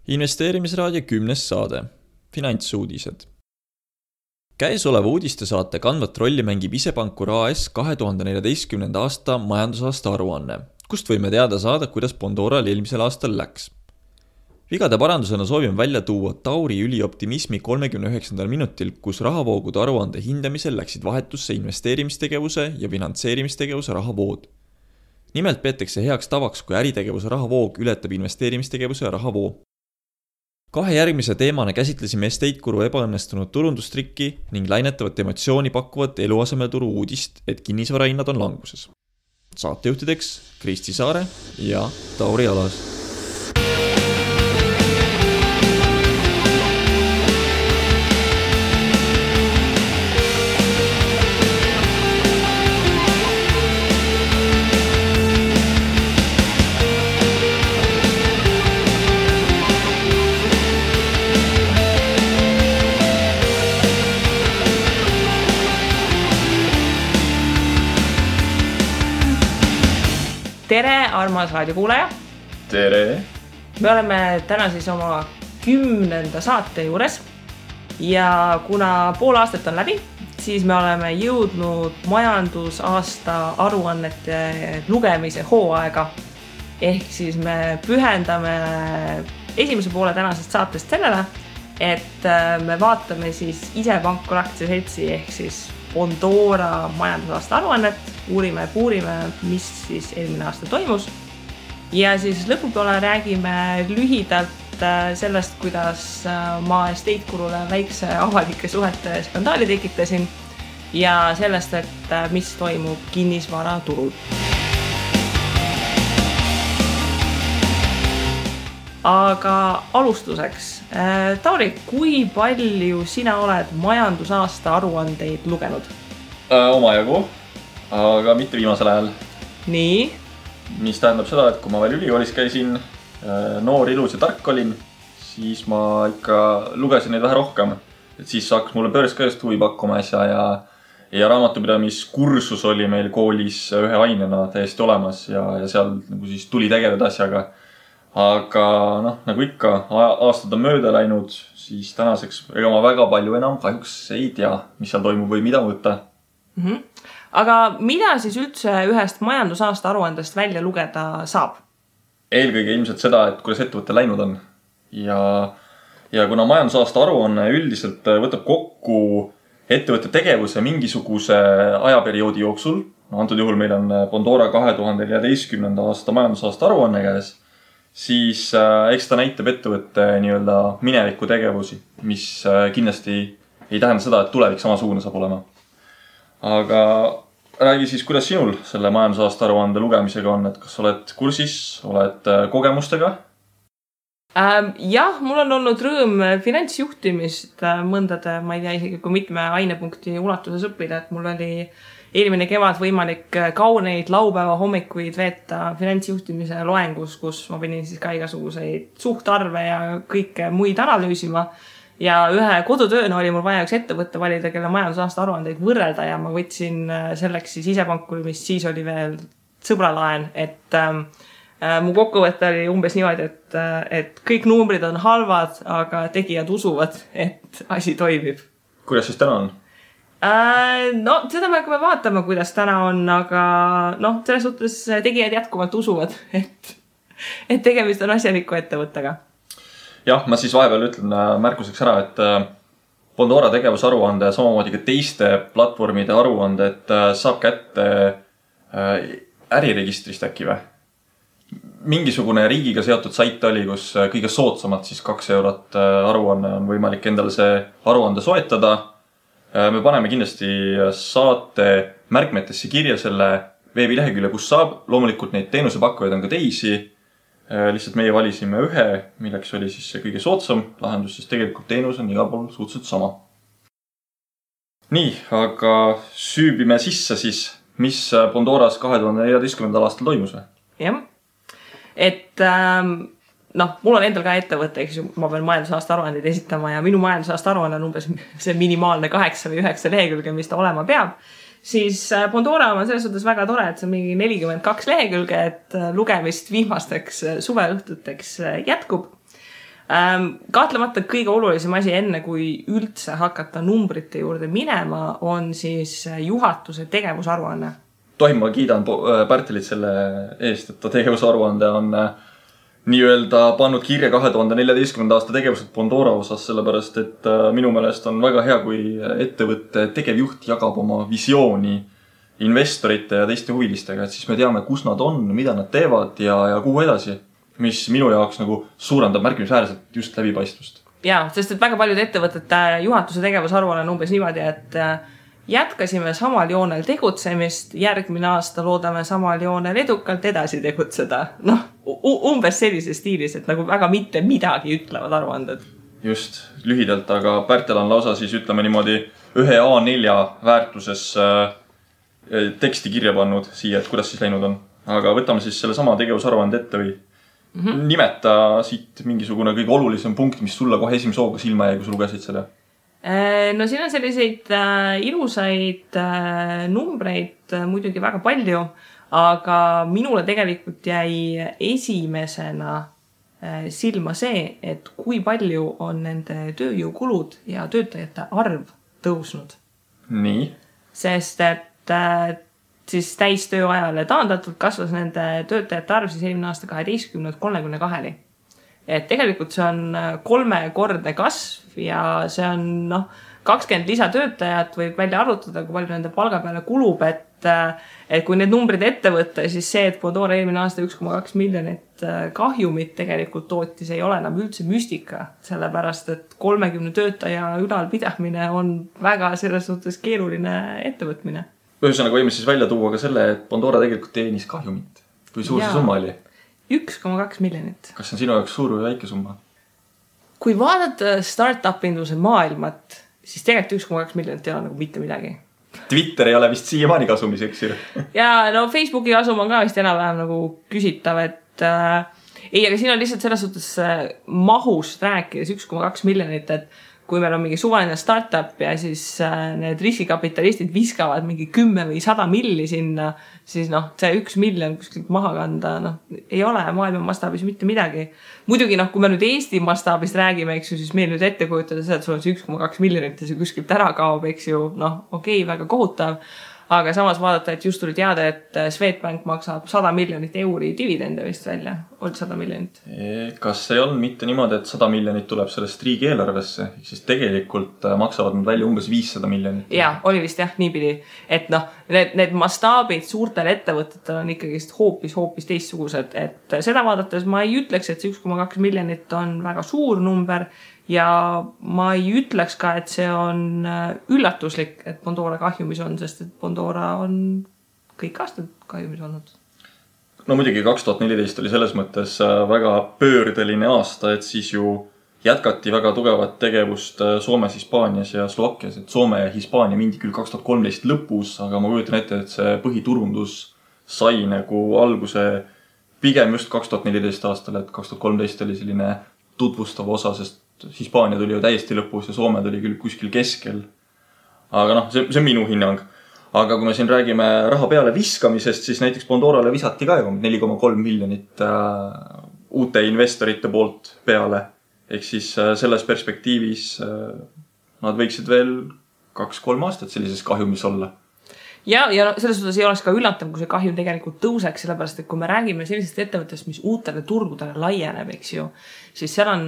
Investeerimisraadio 10. saade. Finantsuudised. Käesoleva uudistesaate kandvat rolli mängib Isepankur AS 2014. aasta majandusaasta aruanne, kust võime teada saada, kuidas Bondoral eelmisel aastal läks. Vigade parandusena soovime välja tuua Tauri ülioptimismi 39. minutil, kus rahavoogude aruande hindamisel läksid vahetusse investeerimistegevuse ja finantseerimistegevuse rahavood. Nimelt peetakse heaks tavaks, kui äritegevuse rahavoog ületab investeerimistegevuse rahavoo. Kahe järgmise teemana käsitlesime estate-kuru ebaõnnestunud turundustrikki ning lainetavat emotsiooni pakkuvat eluasemeturu uudist, et kinnisvarahinnad on languses. Saatejuhtideks Kristi Saare ja Tauri Alas. Tere, armas raadiokuulaja! Tere! Me oleme täna siis oma 10. saate juures ja kuna pool aastat on läbi, siis me oleme jõudnud majandusaasta aruannete lugemise hooaega. Ehk siis me pühendame esimese poole tänasest saatest sellele, et me vaatame siis Isepankur aktsiaseltsi ehk siis Bondora majandusaasta aruannet, uurime ja puurime, mis siis eelmine aasta toimus. Ja siis lõpupoole räägime lühidalt sellest, kuidas ma estate-kurule väikse avalike suhete skandaali tekitasin ja sellest, et mis toimub kinnisvaraturul. Aga alustuseks, Tauri, kui palju sina oled majandusaasta aruandeid lugenud? Omajagu, aga mitte viimasel ajal. Nii? Mis tähendab seda, et kui ma veel ülikoolis käisin, noor, ilus ja tark olin, siis ma ikka lugesin neid vähe rohkem. Et siis hakkas mulle börs ka just huvi pakkuma ja raamatupidamiskursus oli meil koolis ühe ainena täiesti olemas ja seal nagu siis tuli tegeleda asjaga. Aga nagu ikka, aastad on mööda läinud, siis tänaseks ega ma väga palju enam kahjuks ei tea, mis seal toimub või mida võtta. Aga mida siis üldse ühest majandusaasta aruandest välja lugeda saab? Eelkõige ilmselt seda, et kuidas ettevõte läinud on. Ja kuna majandusaasta aruanne üldiselt võtab kokku ettevõtte tegevuse mingisuguse ajaperioodi jooksul, antud juhul meil on Bondora 2014. aasta majandusaasta aruanne käes, siis eks ta näitab ettevõtte nii-öelda mineviku tegevusi, mis kindlasti ei tähenda seda, et tulevik samasugune saab olema. Aga räägi siis, kuidas sinul selle majandusaasta aruande lugemisega on, et kas oled kursis, oled kogemustega? Jah, mul on olnud rõõm finantsjuhtimist mõndade, ma ei tea isegi kui mitme ainepunkti ulatuses õppida, et mul oli eelmine kevad võimalik kauneid laupäeva hommikuid veeta finantsjuhtimise loengus, kus ma pidin siis ka igasuguseid suhtarve ja kõike muid analüüsima. Ja ühe kodutööna oli mul vaja üks ettevõtte valida, kelle majandusaasta aruandeid võrrelda ja ma võtsin selleks siis Isepankuri, mis siis oli veel sõbralaen, et mu kokkuvõte oli umbes niimoodi, et kõik numbrid on halvad, aga tegijad usuvad, et asi toimib. Kuidas siis täna on? Seda me hakkame vaatama, kuidas täna on, aga selles suhtes tegijad jätkuvalt usuvad, et tegemist on asjaliku ettevõttega. Jah, ma siis vahepeal ütlen märkuseks ära, et Bondora tegevusaruande ja samamoodi ka teiste platvormide aruande, et saab kätte äriregistrist äkki või? Mingisugune riigiga seotud sait oli, kus kõige soodsamalt siis 2 eurot aruanne on võimalik endale see aruande soetada. Me paneme kindlasti saate märkmetesse kirja selle veebilehekülje, kus saab. Loomulikult neid teenusepakkujaid on ka teisi. Lihtsalt meie valisime ühe, milleks oli siis see kõige soodsam lahendus, siis tegelikult teenus on igal pool suhteliselt sama. Nii, aga süübime sisse siis, mis Bondoras 2014. aastal toimus või? Jah, et mul on endal ka ettevõte, eks ju, ma pean majandusaasta aruandeid esitama ja minu majandusaasta aruanne on umbes see minimaalne 8 või 9 lehekülge, mis ta olema peab. Siis Bondora on selles suhtes väga tore, et see on mingi 42 lehekülge, et lugemist viimasteks suveõhtuteks jätkub. Kahtlemata kõige olulisem asi enne, kui üldse hakata numbrite juurde minema, on siis juhatuse tegevusaruanne. Tohim, ma kiidan Pärtelit selle eest, et ta tegevusaruande on nii-öelda pannud kirja 2014. aasta tegevused Bondora osas, sellepärast et minu meelest on väga hea, kui ettevõtte tegevjuht jagab oma visiooni investorite ja teiste huvilistega, et siis me teame, kus nad on, mida nad teevad ja kuhu edasi, mis minu jaoks nagu suurendab märkimisväärselt just läbipaistvust. Jaa, sest et väga paljud ettevõtete juhatuse tegevusaruanne on umbes niimoodi, et jätkasime samal joonel tegutsemist, järgmine aasta loodame samal joonel edukalt edasi tegutseda. Noh, umbes sellises stiilis, et nagu väga mitte midagi ütlevad aruanded. Just, lühidalt, aga Pärtel on lausa siis ütleme niimoodi ühe A4 väärtuses teksti kirja pannud siia, et kuidas siis läinud on. Aga võtame siis selle sama tegevusaruande ette või nimeta siit mingisugune kõige olulisem punkt, mis sulle kohe esimese hooga silma jäi, kui sa lugesid selle. No siin on selliseid ilusaid numbreid muidugi väga palju, aga minule tegelikult jäi esimesena silma see, et kui palju on nende tööjõukulud ja töötajate arv tõusnud. Nii? Sest et siis täistööajale taandatult kasvas nende töötajate arv siis eelmine aasta 12-lt 32-ni. Et tegelikult see on 3-kordne kasv ja see on 20 lisatöötajat võib välja arvutada, kui palju nende palga peale kulub, et kui need numbrid ette võtta, siis see, et Bondora eelmine aasta 1,2 miljonit kahjumit tegelikult tootis, ei ole enam üldse müstika, sellepärast et 30 töötaja ülalpidamine on väga selles suhtes keeruline ettevõtmine. Ühesõnaga võime siis välja tuua ka selle, et Bondora tegelikult teenis kahjumit. Kui suur see summa oli? 1,2 miljonit. Kas see on sinu jaoks suur või väike summa? Kui vaadata start-up-induse maailmat, siis tegelikult 1,2 miljonit ei ole nagu mitte midagi. Twitter ei ole vist siiamaani kasumis, eks ju? Ja no Facebooki kasum on ka vist enam-vähem nagu küsitav, et ei, aga siin on lihtsalt selles suhtes mahust rääkides 1,2 miljonit, et kui meil on mingi suvaline startup ja siis need riskikapitalistid viskavad mingi 10 või 100 milli sinna, siis see 1 miljon kuskilt maha kanda, ei ole maailma mastaabis mitte midagi. Muidugi, kui me nüüd Eesti mastaabist räägime, eks ju, siis meil nüüd ette kujutada seda, et sul on see 1,2 miljonit ja see kuskilt ära kaob, eks ju, okei, väga kohutav. Aga samas vaadata, et just tuli teada, et Swedbank maksab 100 miljonit euri dividende vist välja. Olnud 100 miljonit. Kas ei olnud mitte niimoodi, et 100 miljonit tuleb sellest riigi eelarvesse? Siis tegelikult maksavad nad välja umbes 500 miljonit. Ja, oli vist jah, niipidi. Et need mastaabid suurtel ettevõtetel on ikkagi hoopis teistsugused. Et seda vaadates ma ei ütleks, et see 1,2 miljonit on väga suur number. Ja ma ei ütleks ka, et see on üllatuslik, et Bondora kahjumis on, sest et Bondora on kõik aastad kahjumis olnud. No muidugi 2014 oli selles mõttes väga pöördeline aasta, et siis ju jätkati väga tugevat tegevust Soomes, Hispaanias ja Slovakkias. Et Soome ja Hispaania mindi küll 2013 lõpus, aga ma kujutan ette, et see põhiturundus sai nagu alguse pigem just 2014 aastal, et 2013 oli selline tutvustav osa, sest Hispaania tuli ju täiesti lõpus ja Soome tuli küll kuskil keskel. Aga see on minu hinnang. Aga kui me siin räägime raha peale viskamisest, siis näiteks Bondorale visati ka 4,3 miljonit uute investorite poolt peale. Ehk siis selles perspektiivis nad võiksid veel 2-3 aastat sellises kahjumis olla. Ja selles suhtes ei oleks ka üllatav, kui see kahjum tegelikult tõuseks, sellepärast, et kui me räägime sellisest ettevõttest, mis uutele turgudele laieneb, eks ju, siis seal on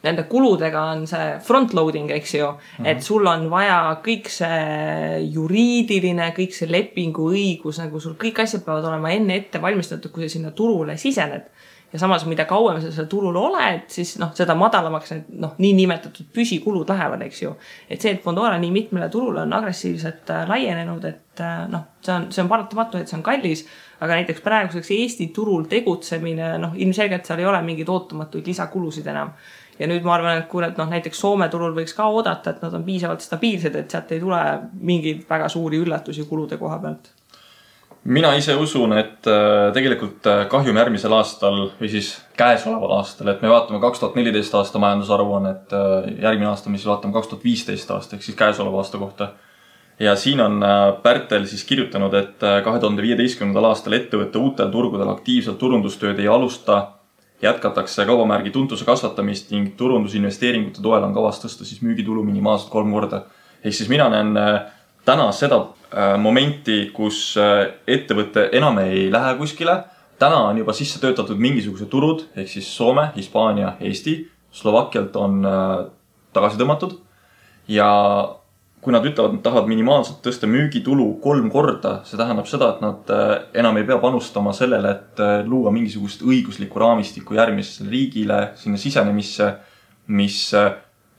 nende kuludega on see frontloading, eks ju, et sul on vaja kõik see juriidiline, kõik see lepingu õigus, nagu sul kõik asjad peavad olema enne ette valmistatud, kui sa sinna turule sisened. Ja samas, mida kauem sa seal turul oled, siis seda madalamaks need nii nimetatud püsikulud lähevad, eks ju. Et see, et Bondora nii mitmele turule on agressiivselt laienenud, et see on paratamatu, et see on kallis, aga näiteks praeguseks Eesti turul tegutsemine, ilmselgelt seal ei ole mingid ootamatuid lisakulusid enam. Ja nüüd ma arvan, et kui näiteks Soome turul võiks ka oodata, et nad on piisavalt stabiilsed, et sealt ei tule mingeid väga suuri üllatusi kulude koha pealt. Mina ise usun, et tegelikult kahjum järgmisel aastal või siis käesoleval aastal, et me vaatame 2014 aasta majandusaruannet, järgmine aasta, mis vaatame 2015 aasta, ehk siis käesoleva aasta kohta. Ja siin on Pärtel siis kirjutanud, et 2015. aastal ettevõtte uutel turgudel aktiivselt turundustööd ei alusta jätkatakse kaubamärgi tuntuse kasvatamist ning turundusinvesteeringute toel on kavas tõsta siis müügitulu minimaalselt 3 korda. Ehk siis mina näen täna seda momenti, kus ettevõte enam ei lähe kuskile. Täna on juba sisse töötatud mingisugused turud, ehk siis Soome, Hispaania, Eesti, Slovakkialt on tagasi tõmmatud. Ja kui nad ütlevad, nad tahavad minimaalselt tõsta müügitulu 3 korda, see tähendab seda, et nad enam ei pea panustama sellele, et luua mingisugust õiguslikku raamistikku järgmisele riigile, sinna sisenemisse, mis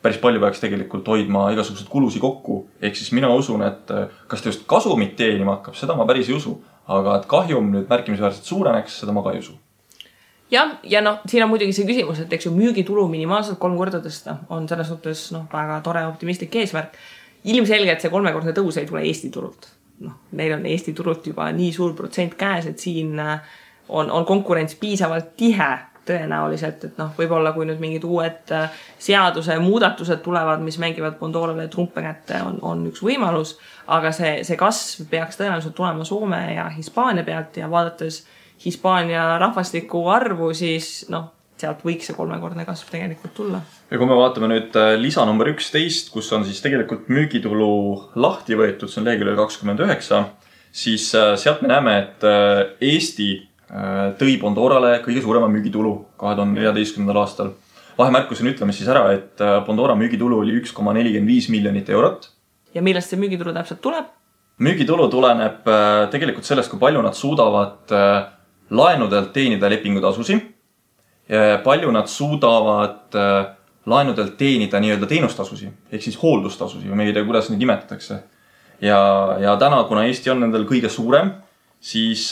päris palju peaks tegelikult hoidma igasugused kulusi kokku. Ehk siis mina usun, et kas ta just kasumit teenima hakkab, seda ma päris ei usu, aga et kahjum nüüd märkimisväärselt suureneks, seda ma ka ei usu. Ja siin on muidugi see küsimus, et eks ju müügitulu minimaalselt 3 korda tõsta on selles suhtes väga tore optimistlik eesmärk. Ilmselgelt see 3-kordne tõus ei tule Eesti turult. Neil on Eesti turult juba nii suur protsent käes, et siin on konkurents piisavalt tihe tõenäoliselt, et võib-olla kui nüüd mingid uued seaduse muudatused tulevad, mis mängivad Pandorale trumpe kätte, on üks võimalus, aga see kasv peaks tõenäoliselt tulema Soome ja Hispaania pealt ja vaadates Hispaania rahvastiku arvu, siis sealt võiks see 3-kordne kasv tegelikult tulla. Ja kui me vaatame nüüd lisa number 11, kus on siis tegelikult müügitulu lahti võetud, see on leheküljel 29, siis sealt me näeme, et Eesti tõi Pandorale kõige suurema müügitulu 2014. aastal. Vahemärkusena ütleme siis ära, et Pandora müügitulu oli 1,45 miljonit eurot. Ja millest see müügitulu täpselt tuleb? Müügitulu tuleneb tegelikult sellest, kui palju nad suudavad laenudelt teenida lepingutasusi. Palju nad suudavad laenudelt teenida nii-öelda teenustasusi, ehk siis hooldustasusi, või me ei tea, kuidas neid nimetatakse. Ja täna, kuna Eesti on nendel kõige suurem, siis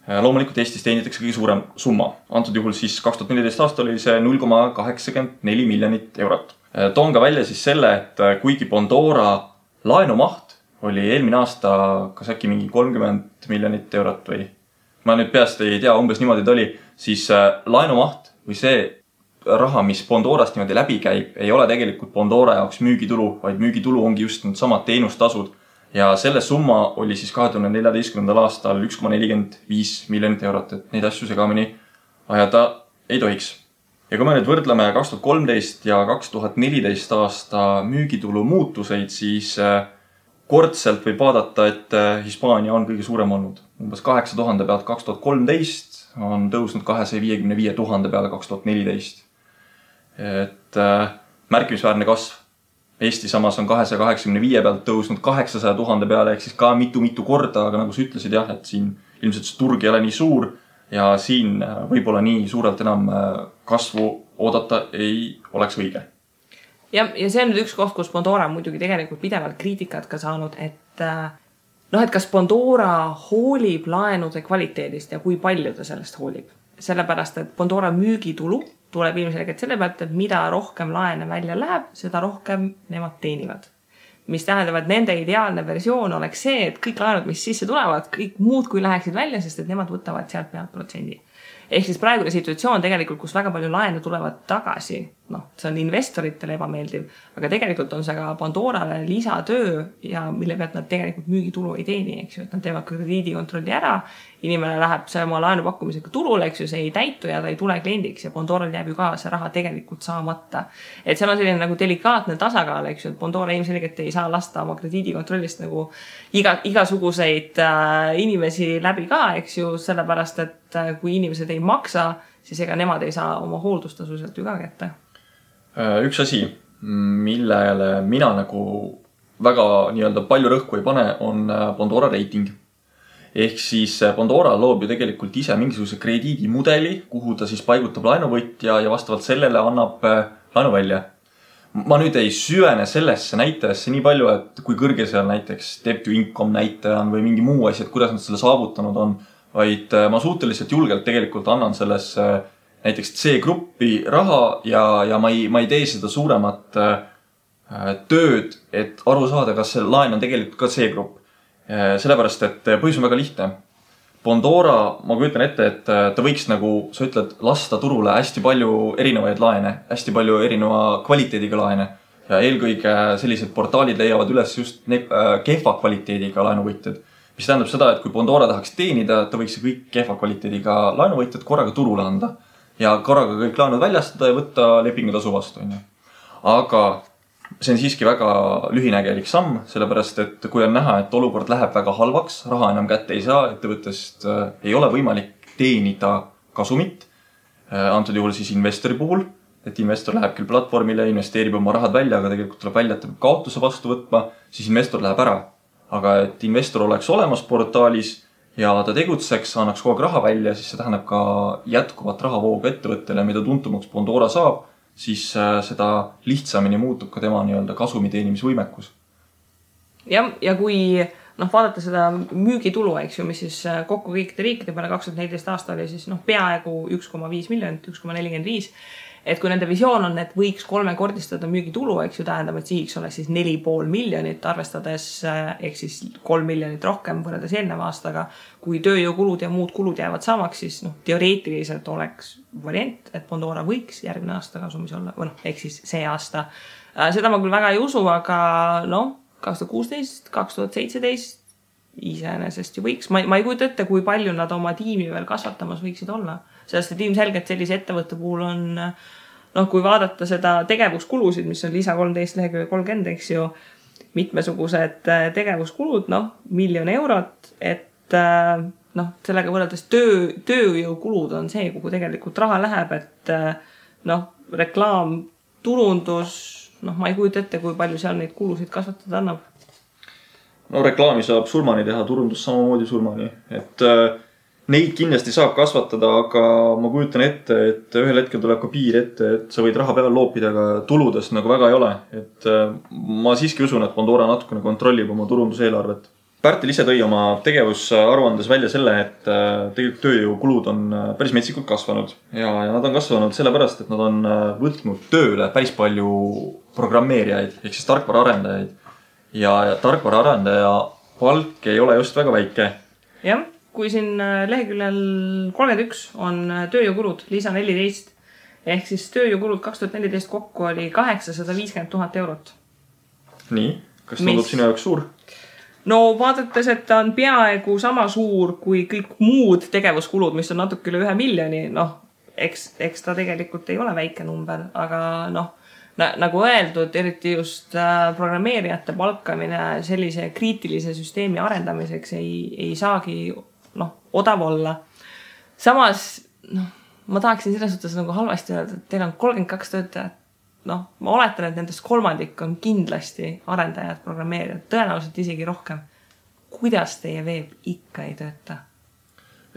loomulikult Eestis teenitakse kõige suurem summa. Antud juhul siis 2014 aastal oli see 0,84 miljonit eurot. Toon ka välja siis selle, et kuigi Pandora laenumaht oli eelmine aasta kas äkki mingi 30 miljonit eurot või ma nüüd peast ei tea, umbes niimoodi ta oli, siis laenumaht või see raha, mis Pandorast niimoodi läbi käib, ei ole tegelikult Pandora jaoks müügitulu, vaid müügitulu ongi just need samad teenustasud. Ja selle summa oli siis 2014. aastal 1,45 miljonit eurot, et neid asju segamini ajada ei tohiks. Ja kui me nüüd võrdleme 2013 ja 2014 aasta müügitulu muutuseid, siis kordselt võib vaadata, et Hispaania on kõige suurem olnud. Umbes 8000 pealt 2013 on tõusnud 255 000 peale 2014. Et märkimisväärne kasv. Eesti samas on 285 pealt tõusnud 800 000 peale, ehk siis ka mitu korda, aga nagu sa ütlesid jah, et siin ilmselt see turg ei ole nii suur ja siin võib-olla nii suurelt enam kasvu oodata ei oleks õige. Ja see on nüüd üks koht, kus Pandora on muidugi tegelikult pidevalt kriitikat ka saanud, et kas Pandora hoolib laenude kvaliteedist ja kui palju ta sellest hoolib. Sellepärast, et Pandora müügitulu tuleb ilmselgelt selle pealt, et mida rohkem laene välja läheb, seda rohkem nemad teenivad. Mis tähendab, et nende ideaalne versioon oleks see, et kõik laenud, mis sisse tulevad, kõik muud kui läheksid välja, sest et nemad võtavad sealt pealt protsendi. Ehk siis praegune situatsioon tegelikult, kus väga palju laene tulevad tagasi, see on investoritele ebameeldiv, aga tegelikult on see ka Pandorale lisatöö ja mille pealt nad tegelikult müügitulu ei teeni, eks ju, et nad teevad krediidikontrolli ära, inimene läheb see oma laenupakkumisega turule, eks ju, see ei täitu ja ta ei tule kliendiks ja Pandoral jääb ju ka see raha tegelikult saamata. Et seal on selline nagu delikaatne tasakaal, eks ju, et Pandora ilmselgelt ei saa lasta oma krediidikontrollist nagu igasuguseid inimesi läbi ka, eks ju, sellepärast, et kui inimesed ei maksa, siis ega nemad ei saa oma hooldustasu sealt ju ka kätte. Üks asi, millele mina nagu väga nii-öelda palju rõhku ei pane, on Pandora reiting. Ehk siis Pandora loob ju tegelikult ise mingisuguse krediidimudeli, kuhu ta siis paigutab laenuvõtja ja vastavalt sellele annab laenu välja. Ma nüüd ei süvene sellesse näitajasse nii palju, et kui kõrge seal näiteks debt to income näitaja on või mingi muu asi, et kuidas nad selle saavutanud on, vaid ma suhteliselt julgelt tegelikult annan sellesse näiteks C-gruppi raha ja ma ei tee seda suuremat tööd, et aru saada, kas see laen on tegelikult ka C-grupp. Sellepärast, et põhjus on väga lihtne. Pandora, ma kujutan ette, et ta võiks nagu, sa ütled, lasta turule hästi palju erinevaid laene, hästi palju erineva kvaliteediga laene. Ja eelkõige sellised portaalid leiavad üles just kehva kvaliteediga laenuvõtjad. mis tähendab seda, et kui Pandora tahaks teenida, ta võiks kõik kehva kvaliteediga laenuvõitjad korraga turule anda ja korraga kõik laenud väljastada ja võtta lepingutasu vastu. Aga see on siiski väga lühinägelik samm, sellepärast et kui on näha, et olukord läheb väga halvaks, raha enam kätte ei saa, ettevõttest ei ole võimalik teenida kasumit, antud juhul siis investori puhul, et investor läheb küll platvormile, investeerib oma rahad välja, aga tegelikult tuleb välja, et ta peab kaotuse vastu võtma, siis investor läheb ära. Aga et investor oleks olemas portaalis ja ta tegutseks, annaks kogu aeg raha välja, siis see tähendab ka jätkuvat rahavoogu ettevõttele, mida tuntumaks Pandora saab, siis seda lihtsamini muutub ka tema kasumi teenimisvõimekus. Ja kui vaadata seda müügitulu, eks ju, mis siis kokku kõikide riikide peale 2014 aasta oli siis peaaegu 1,5 miljonit, 1,45. Et kui nende visioon on, et võiks 3-kordistada müügitulu, eks ju, tähendab, et sihiks oleks siis 4,5 miljonit, arvestades ehk siis 3 miljonit rohkem võrreldes eelneva aastaga. Kui tööjõukulud ja muud kulud jäävad samaks, siis teoreetiliselt oleks variant, et Pandora võiks järgmine aasta kasumis olla, ehk siis see aasta. Seda ma küll väga ei usu, aga 2016, 2017 iseenesest ju võiks. Ma ei kujuta ette, kui palju nad oma tiimi veel kasvatamas võiksid olla. Sellest, et ilmselgelt sellise ettevõtte puhul on, kui vaadata seda tegevuskulusid, mis on lisa 13 lehekülje 30, eks ju, mitmesugused tegevuskulud, 1 miljon eurot, et sellega võrreldes tööjõukulud on see, kuhu tegelikult raha läheb, et reklaam, turundus, ma ei kujuta ette, kui palju seal neid kulusid kasvatada annab. Reklaami saab surmani teha, turundus samamoodi surmani, et neid kindlasti saab kasvatada, aga ma kujutan ette, et ühel hetkel tuleb ka piir ette, et sa võid raha peale loopida, aga tuludes väga ei ole. Et ma siiski usun, et Pandora natukene kontrollib oma turunduseelarvet. Pärtel ise tõi oma tegevusaruandes välja selle, et tegelikult tööjõukulud on päris metsikult kasvanud. Ja nad on kasvanud sellepärast, et nad on võtnud tööle päris palju programmeerijaid, ehk siis tarkvaraarendajaid. Ja tarkvaraarendaja palk ei ole just väga väike. Jah. Kui siin leheküljel 31 on tööjõukulud, lisa 14, ehk siis tööjõukulud 2014 kokku oli 850 000 eurot. Nii, kas tundub sinu jaoks suur? Vaadates, et ta on peaaegu sama suur kui kõik muud tegevuskulud, mis on natuke üle 1 miljoni, eks ta tegelikult ei ole väike number, aga nagu öeldud, eriti just programmeerijate palkamine sellise kriitilise süsteemi arendamiseks ei saagi odav olla. Samas, ma tahaksin selles suhtes halvasti öelda, et teil on 32 töötajat. Ma oletan, et nendest kolmandik on kindlasti arendajad, programmeerijad, tõenäoliselt isegi rohkem. Kuidas teie veeb ikka ei tööta?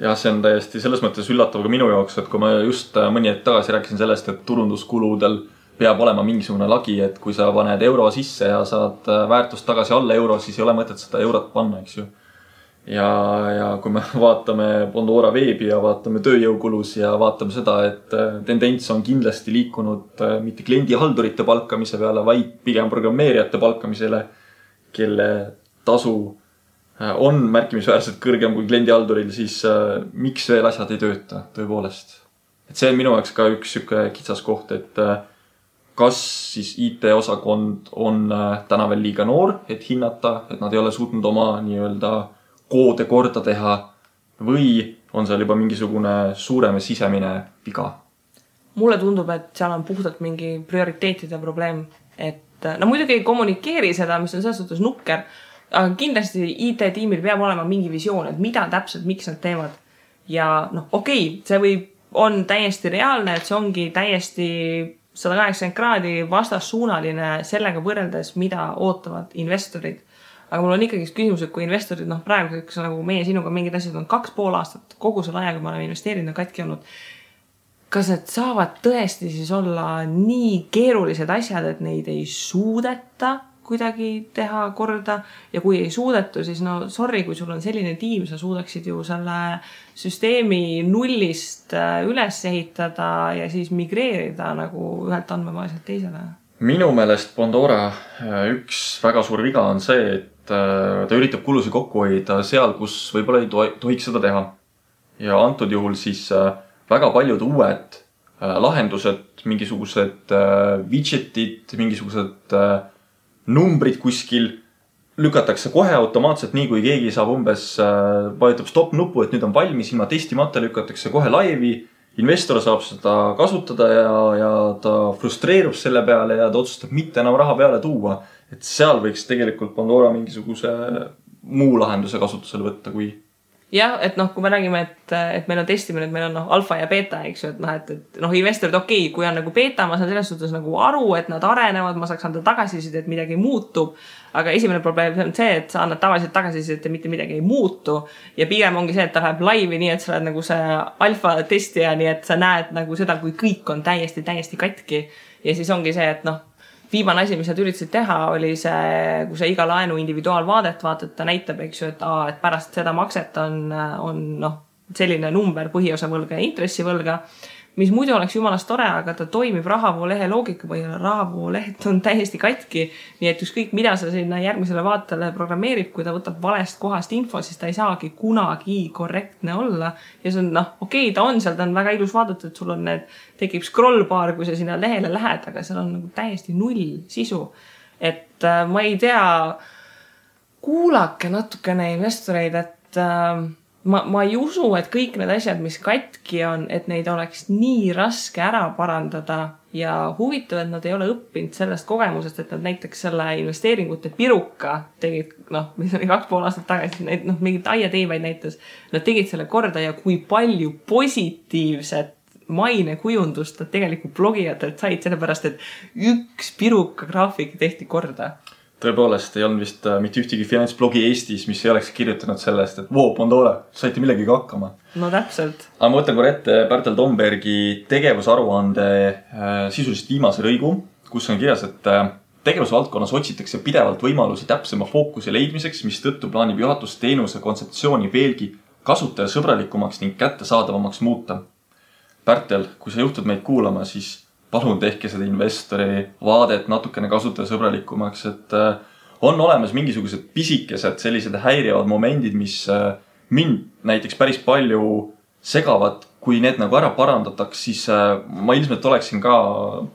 Ja see on täiesti selles mõttes üllatav ka minu jaoks, et kui ma just mõni hetk tagasi rääkisin sellest, et turunduskuludel peab olema mingisugune lagi, et kui sa paned euro sisse ja saad väärtust tagasi alla euro, siis ei ole mõtet seda eurot panna, eks ju. Ja kui me vaatame Pandora veebi ja vaatame tööjõukulus ja vaatame seda, et tendents on kindlasti liikunud mitte kliendihaldurite palkamise peale, vaid pigem programmeerijate palkamisele, kelle tasu on märkimisväärselt kõrgem kui kliendihalduril, siis miks veel asjad ei tööta tõepoolest. Et see on minu jaoks ka üks kitsas koht, et kas siis IT-osakond on täna veel liiga noor, et hinnata, et nad ei ole suutnud oma koode korda teha või on seal juba mingisugune suurem sisemine viga? Mulle tundub, et seal on puhtalt mingi prioriteetide probleem, et muidugi ei kommunikeeri seda, mis on selles suhtes nukker, aga kindlasti IT-tiimil peab olema mingi visioon, et mida täpselt, miks nad teevad. Ja see on täiesti reaalne, et see ongi täiesti 180 kraadi vastassuunaline sellega võrreldes, mida ootavad investorid. Aga mul on ikkagi küsimus, et kui investorid, praegu nagu meie sinuga mingid asjad on 2,5 aastat, kogu selle ajaga me oleme investeerinud katki olnud. Kas need saavad tõesti siis olla nii keerulised asjad, et neid ei suudeta kuidagi teha korda? Ja kui ei suudetu, siis sorry, kui sul on selline tiim, sa suudaksid ju selle süsteemi nullist üles ehitada ja siis migreerida nagu ühelt andmebaasilt teisele. Minu meelest Pandora üks väga suur viga on see, et ta üritab kulusid kokku hoida seal, kus võib-olla ei tohiks seda teha. Ja antud juhul siis väga paljud uued lahendused, mingisugused widgetid, mingisugused numbrid kuskil lükatakse kohe automaatselt, nii kui keegi saab umbes, vajutab stop nupu, et nüüd on valmis, ilma testimata lükatakse kohe laivi. Investor saab seda kasutada ja ta frustreerub selle peale ja ta otsustab mitte enam raha peale tuua. Et seal võiks tegelikult Pandora mingisuguse muu lahenduse kasutusele võtta kui... Jah, et kui me räägime, et meil on testimine, et meil on alfa ja beta, eks ju, et investorid, okei, kui on nagu beta, ma saan selles suhtes nagu aru, et nad arenevad, ma saaks anda tagasiside, et midagi muutub, aga esimene probleem on see, et sa annad tavaliselt tagasiside, et mitte midagi ei muutu ja pigem ongi see, et ta läheb laivi nii, et sa oled nagu see alfa testija, nii et sa näed nagu seda, kui kõik on täiesti katki ja siis ongi see, et viimane asi, mis nad üritasid teha, oli see, kui sa iga laenu individuaalvaadet vaatad, ta näitab, eks ju, et pärast seda makset on selline number põhiosa võlga ja intressivõlga, mis muidu oleks jumalast tore, aga ta toimib rahavoolehe loogika põhjal. Rahavooleht on täiesti katki, nii et ükskõik mida sa sinna järgmisele vaatele programmeerib, kui ta võtab valest kohast info, siis ta ei saagi kunagi korrektne olla. Ja see on, okei, ta on seal, ta on väga ilus vaadata, et sul on tekib scrollbar, kui sa sinna lehele lähed, aga seal on nagu täiesti null sisu. Et ma ei tea, kuulake natukene investoreid, et ma ei usu, et kõik need asjad, mis katki on, et neid oleks nii raske ära parandada ja huvitav, et nad ei ole õppinud sellest kogemusest, et nad näiteks selle investeeringute piruka tegid, mis oli 2,5 aastat tagasi, mingit aiateivaid näitas, nad tegid selle korda ja kui palju positiivset mainekujundust nad tegelikult blogijatelt said, sellepärast, et üks piruka graafik tehti korda. Tõepoolest, ei olnud vist mitte ühtegi finantsblogi Eestis, mis ei oleks kirjutanud sellest, et Pandora, saite millegagi hakkama. No täpselt. Aga ma võtan korra ette Bertel Tombergi tegevusaruande sisuliselt viimase lõigu, kus on kirjas, et tegevusvaldkonnas otsitakse pidevalt võimalusi täpsema fookuse leidmiseks, mis tõttu plaanib juhatus teenuse kontseptsiooni veelgi kasutajasõbralikumaks ning kättesaadavamaks muuta. Bertel, kui sa juhtud meid kuulama, siis palun tehke seda investori vaadet natukene kasutajasõbralikumaks, et on olemas mingisugused pisikesed sellised häirivad momendid, mis mind näiteks päris palju segavad. Kui need nagu ära parandataks, siis ma ilmselt oleksin ka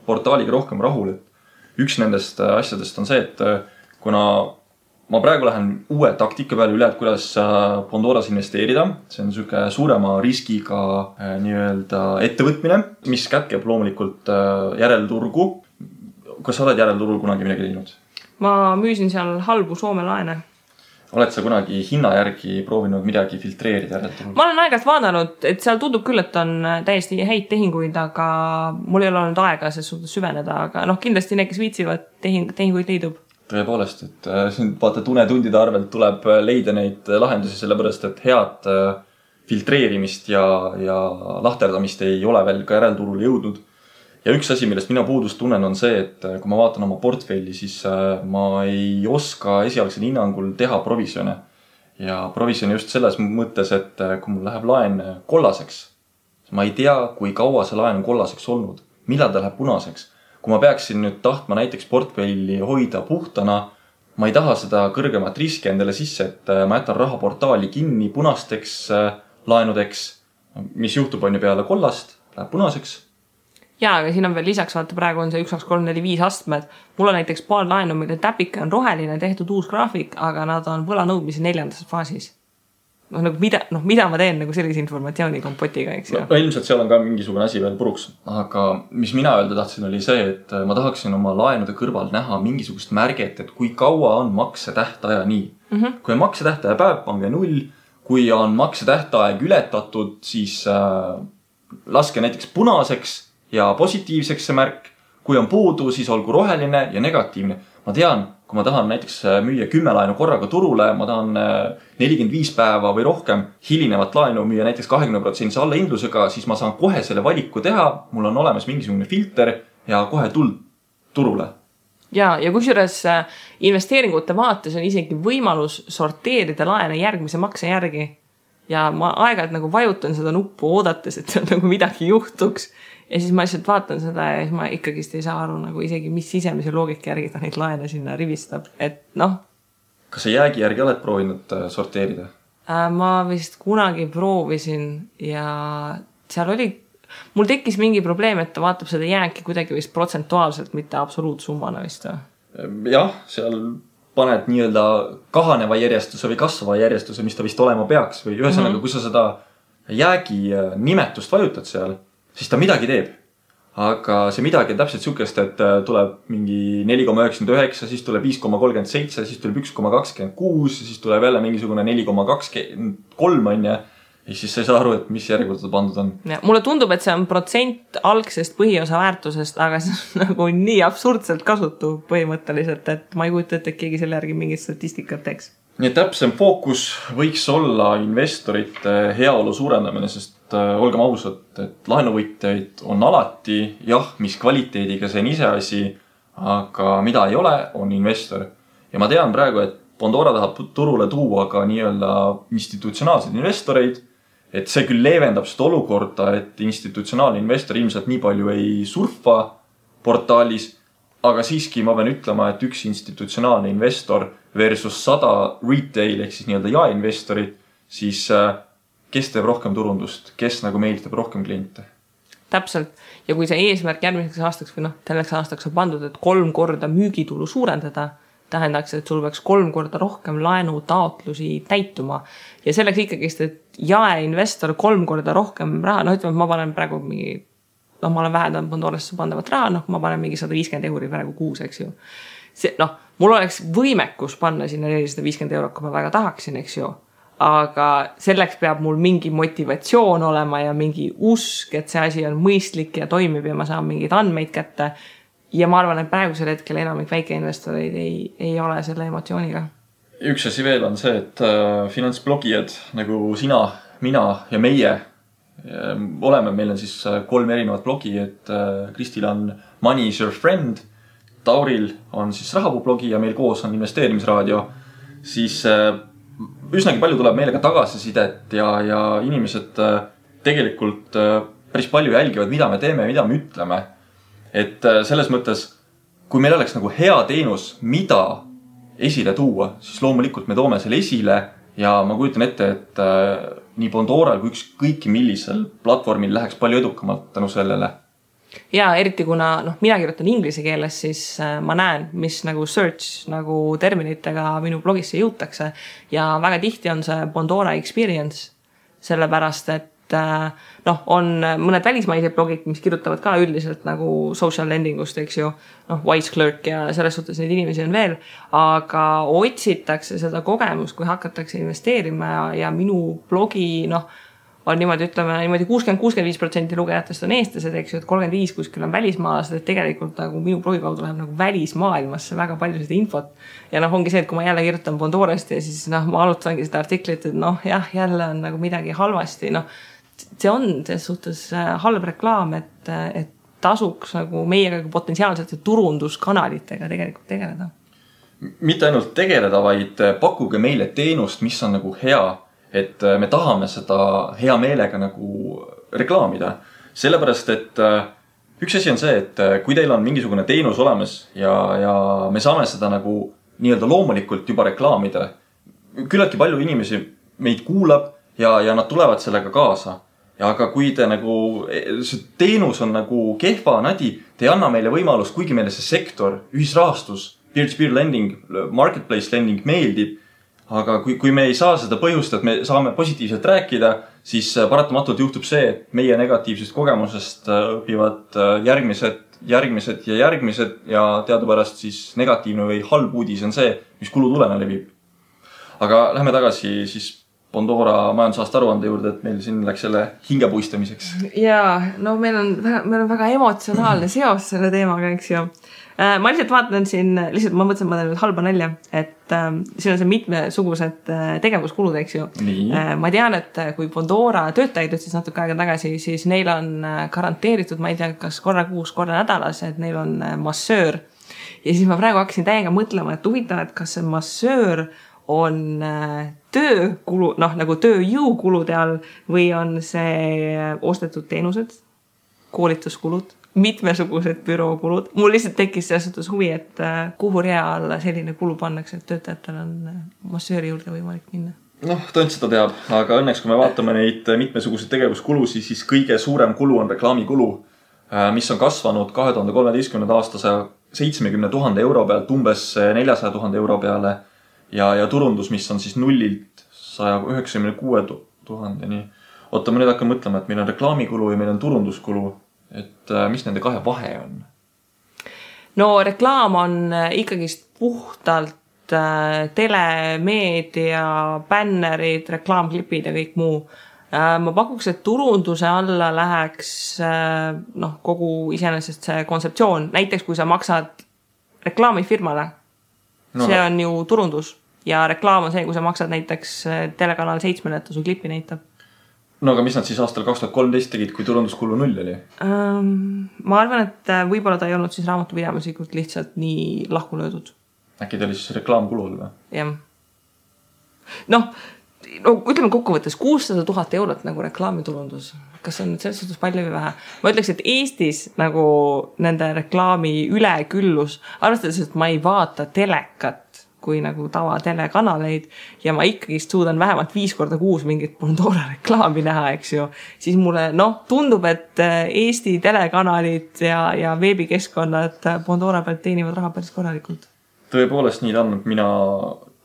portaaliga rohkem rahul. Üks nendest asjadest on see, et kuna ma praegu lähen uue taktika peale üle, et kuidas Pandoras investeerida. See on selline suurema riskiga nii-öelda ettevõtmine, mis kätkeb loomulikult järelturgu. Kas sa oled järelturul kunagi midagi teinud? Ma müüsin seal halbu Soome laene. Oled sa kunagi hinna järgi proovinud midagi filtreerida järelturul? Ma olen aegast vaadanud, et seal tundub küll, et on täiesti häid tehinguid, aga mul ei ole olnud aega selles suhtes süveneda, aga kindlasti need, kes viitsivad tehinguid leidub. Tõepoolest, et vaata tunetundide arvelt tuleb leida neid lahendusi, sellepärast, et head filtreerimist ja lahterdamist ei ole veel ka järelturul jõudnud. Ja üks asi, millest mina puudust tunnen, on see, et kui ma vaatan oma portfelli, siis ma ei oska esialgsel hinnangul teha provisjone. Ja provisjoni just selles mõttes, et kui mul läheb laen kollaseks, ma ei tea, kui kaua see laen on kollaseks olnud, millal ta läheb punaseks. Kui ma peaksin nüüd tahtma näiteks portfelli hoida puhtana, ma ei taha seda kõrgemat riski endale sisse, et ma jätan rahaportaali kinni punasteks laenudeks, mis juhtub on ju peale kollast, läheb punaseks. Jaa, aga siin on veel lisaks, vaata praegu on see 1, 2, 3, 4, 5 astmed. Mul on näiteks paar laenu, mille täpike on roheline, tehtud uus graafik, aga nad on võlanõudmise 4. faasis. Mida ma teen nagu sellise informatsiooni kompotiga, eks ju? Ilmselt seal on ka mingisugune asi veel puruks. Aga mis mina öelda tahtsin oli see, et ma tahaksin oma laenude kõrval näha mingisugust märget, et kui kaua on maksetähtaja nii. Kui on maksetähtaja päev, pange 0. Kui on maksetähtaeg ületatud, siis laske näiteks punaseks ja positiivseks see märk. Kui on puudu, siis olgu roheline ja negatiivne. Ma tean, kui ma tahan näiteks müüa 10 laenu korraga turule, ma tahan 45 päeva või rohkem hilinevat laenu müüa näiteks 20% allahindlusega, siis ma saan kohe selle valiku teha. Mul on olemas mingisugune filter ja kohe tuld turule. Ja kusjuures investeeringute vaates on isegi võimalus sorteerida laene järgmise makse järgi. Ja ma aeg-ajalt nagu vajutan seda nuppu oodates, et seal nagu midagi juhtuks. Ja siis ma lihtsalt vaatan seda ja siis ma ikkagist ei saa aru nagu isegi, mis sisemise loogika järgi ta neid laene sinna rivistab. Et Kas sa jäägi järgi oled proovinud sorteerida? Ma vist kunagi proovisin ja seal oli, mul tekkis mingi probleem, et ta vaatab seda jääki kuidagi vist protsentuaalselt, mitte absoluutsummana vist. Jah, seal paned nii-öelda kahaneva järjestuse või kasvava järjestuse, mis ta vist olema peaks või ühesõnaga, kui sa seda jäägi nimetust vajutad seal, siis ta midagi teeb. Aga see midagi on täpselt sükest, et tuleb mingi 4,99, siis tuleb 5,37, siis tuleb 1,26, siis tuleb jälle mingisugune 4,23 on ja siis sa ei saa aru, et mis järjekorda pandud on. Ja, mulle tundub, et see on protsent algsest põhiosa väärtusest, aga see on nagu nii absurdselt kasutu põhimõtteliselt, et ma ei kujuta, et keegi selle järgi mingit statistikat teeks. Nii et täpsem fookus võiks olla investorite heaolu suurendamine, sest olgem ausad, et laenuvõtjaid on alati, jah, mis kvaliteediga see on ise asi, aga mida ei ole, on investor. Ja ma tean praegu, et Bondora tahab turule tuua ka nii-öelda institutsionaalseid investoreid, et see küll leevendab seda olukorda, et institutsionaalne investor ilmselt nii palju ei surfa portaalis, aga siiski ma pean ütlema, et üks institutsionaalne investor versus 100 retail ehk siis nii-öelda jaeinvestorid, siis kes teeb rohkem turundust, kes nagu meelitab rohkem kliente? Täpselt. Ja kui see eesmärk järgmiseks aastaks või selleks aastaks on pandud, et 3 korda müügitulu suurendada, tähendaks, et sul peaks 3 korda rohkem laenu taotlusi täituma. Ja selleks ikkagist, et jaeinvestor 3 korda rohkem raha, ütleme, et ma panen praegu mingi, ma olen vähendanud Bondorasse pandavat raha, ma panen mingi 150 € praegu kuus, eks ju. See, mul oleks võimekus panna sinna 450 €, kui ma väga tahaksin, eks ju. Aga selleks peab mul mingi motivatsioon olema ja mingi usk, et see asi on mõistlik ja toimib ja ma saan mingid andmeid kätte. Ja ma arvan, et praegusel hetkel enamik väikeinvestoreid ei ole selle emotsiooniga. Üks asi veel on see, et finantsblogijad nagu sina, mina ja meie oleme, meil on siis 3 erinevat blogi, et Kristil on Money is your friend, Tauril on siis rahapuu-blogi ja meil koos on investeerimisraadio, siis üsnagi palju tuleb meile ka tagasisidet ja inimesed tegelikult päris palju jälgivad, mida me teeme ja mida me ütleme. Et selles mõttes, kui meil oleks nagu hea teenus, mida esile tuua, siis loomulikult me toome selle esile ja ma kujutan ette, et nii Bondoral kui kõiki millisel platvormil läheks palju edukamalt tänu sellele. Ja eriti kuna mina kirjutan inglise keeles, siis ma näen, mis nagu search nagu terminitega minu blogisse jõutakse ja väga tihti on see Bondora experience, sellepärast, et on mõned välismaised blogid, mis kirjutavad ka üldiselt nagu social lendingust, eks ju, Wise Clerk ja selles suhtes neid inimesi on veel, aga otsitakse seda kogemust, kui hakatakse investeerima ja minu blogi, on niimoodi, ütleme, niimoodi 60-65% lugejatest on eestlased, eks ju, et 35 kuskil on välismaalased, et tegelikult nagu minu blogi kaudu läheb nagu välismaailmasse väga palju seda infot. Ja ongi see, et kui ma jälle kirjutan Bondorast ja siis ma alutangi seda artiklit, et jälle on nagu midagi halvasti, see on selles suhtes halb reklaam, et tasuks nagu meiega potentsiaalsete turunduskanalitega tegelikult tegeleda. Mitte ainult tegeleda, vaid pakkuge meile teenust, mis on nagu hea, et me tahame seda hea meelega nagu reklaamida. Sellepärast, et üks asi on see, et kui teil on mingisugune teenus olemas ja me saame seda nagu nii-öelda loomulikult juba reklaamida, küllaltki palju inimesi meid kuulab ja nad tulevad sellega kaasa. Ja aga kui te nagu, see teenus on nagu kehva nadi, te ei anna meile võimalust, kuigi meile see sektor, ühisrahastus, peer-to-peer lending, marketplace lending meeldib, aga kui me ei saa seda põhjust, et me saame positiivselt rääkida, siis paratamatult juhtub see, et meie negatiivsest kogemusest õpivad järgmised ja teadupärast siis negatiivne või halb uudis on see, mis kulutulena levib. Aga lähme tagasi siis Bondora majandusaasta aruande juurde, et meil siin läks selle hingepuistamiseks. Ja, meil on väga emotsionaalne seos selle teemaga, eks ju. Ma lihtsalt vaatan siin, ma mõtlesin, ma teen nüüd halba nalja, et siin on see mitmesugused tegevuskulud, eks ju. Ma tean, et kui Bondora töötajaid ütles natuke aega tagasi, siis neil on garanteeritud, ma ei tea, kas korra kuus, korra nädalas, et neil on massöör. Ja siis ma praegu hakkasin täiega mõtlema, et huvitav, et kas see massöör on töökulu, nagu tööjõukulude all või on see ostetud teenused, koolituskulud, mitmesugused bürookulud. Mul lihtsalt tekkis selles suhtes huvi, et kuhu rea alla selline kulu pannakse, et töötajatel on massööri juurde võimalik minna. Tõend seda teab, aga õnneks kui me vaatame neid mitmesuguseid tegevuskulusi, siis kõige suurem kulu on reklaamikulu, mis on kasvanud 2013. 70 000 euro pealt umbes 400 000 euro peale ja turundus, mis on siis nullilt 196 000-ni. Oota, ma nüüd hakkan mõtlema, et meil on reklaamikulu ja meil on turunduskulu. Et mis nende kahe vahe on? No reklaam on ikkagist puhtalt telemeedia, bännerid, reklaamklipid ja kõik muu. Ma pakuks, et turunduse alla läheks kogu iseenesest see kontseptsioon. Näiteks, kui sa maksad reklaamifirmale, see on ju turundus. Ja reklaam on see, kui sa maksad näiteks telekanal 7, et ta su klipi näitab. No aga mis nad siis aastal 2013 tegid, kui turunduskulu 0 oli? Ma arvan, et võib-olla ta ei olnud siis raamatupidamislikult lihtsalt nii lahku löödud. Äkki ta oli siis reklaamkulu või? Jah. No, ütleme kokkuvõttes 600 000 eurot nagu reklaamiturundus. Kas see on selles suhtes palju või vähe? Ma ütleks, et Eestis nagu nende reklaami üleküllus, arvestades, et ma ei vaata telekat kui nagu tava telekanaleid ja ma ikkagi suudan vähemalt 5 korda kuus mingit Pandora reklaami näha, eks ju, siis mulle tundub, et Eesti telekanalid ja veebikeskkonnad Pandora pealt teenivad raha päris korralikult. Tõepoolest nii on, mina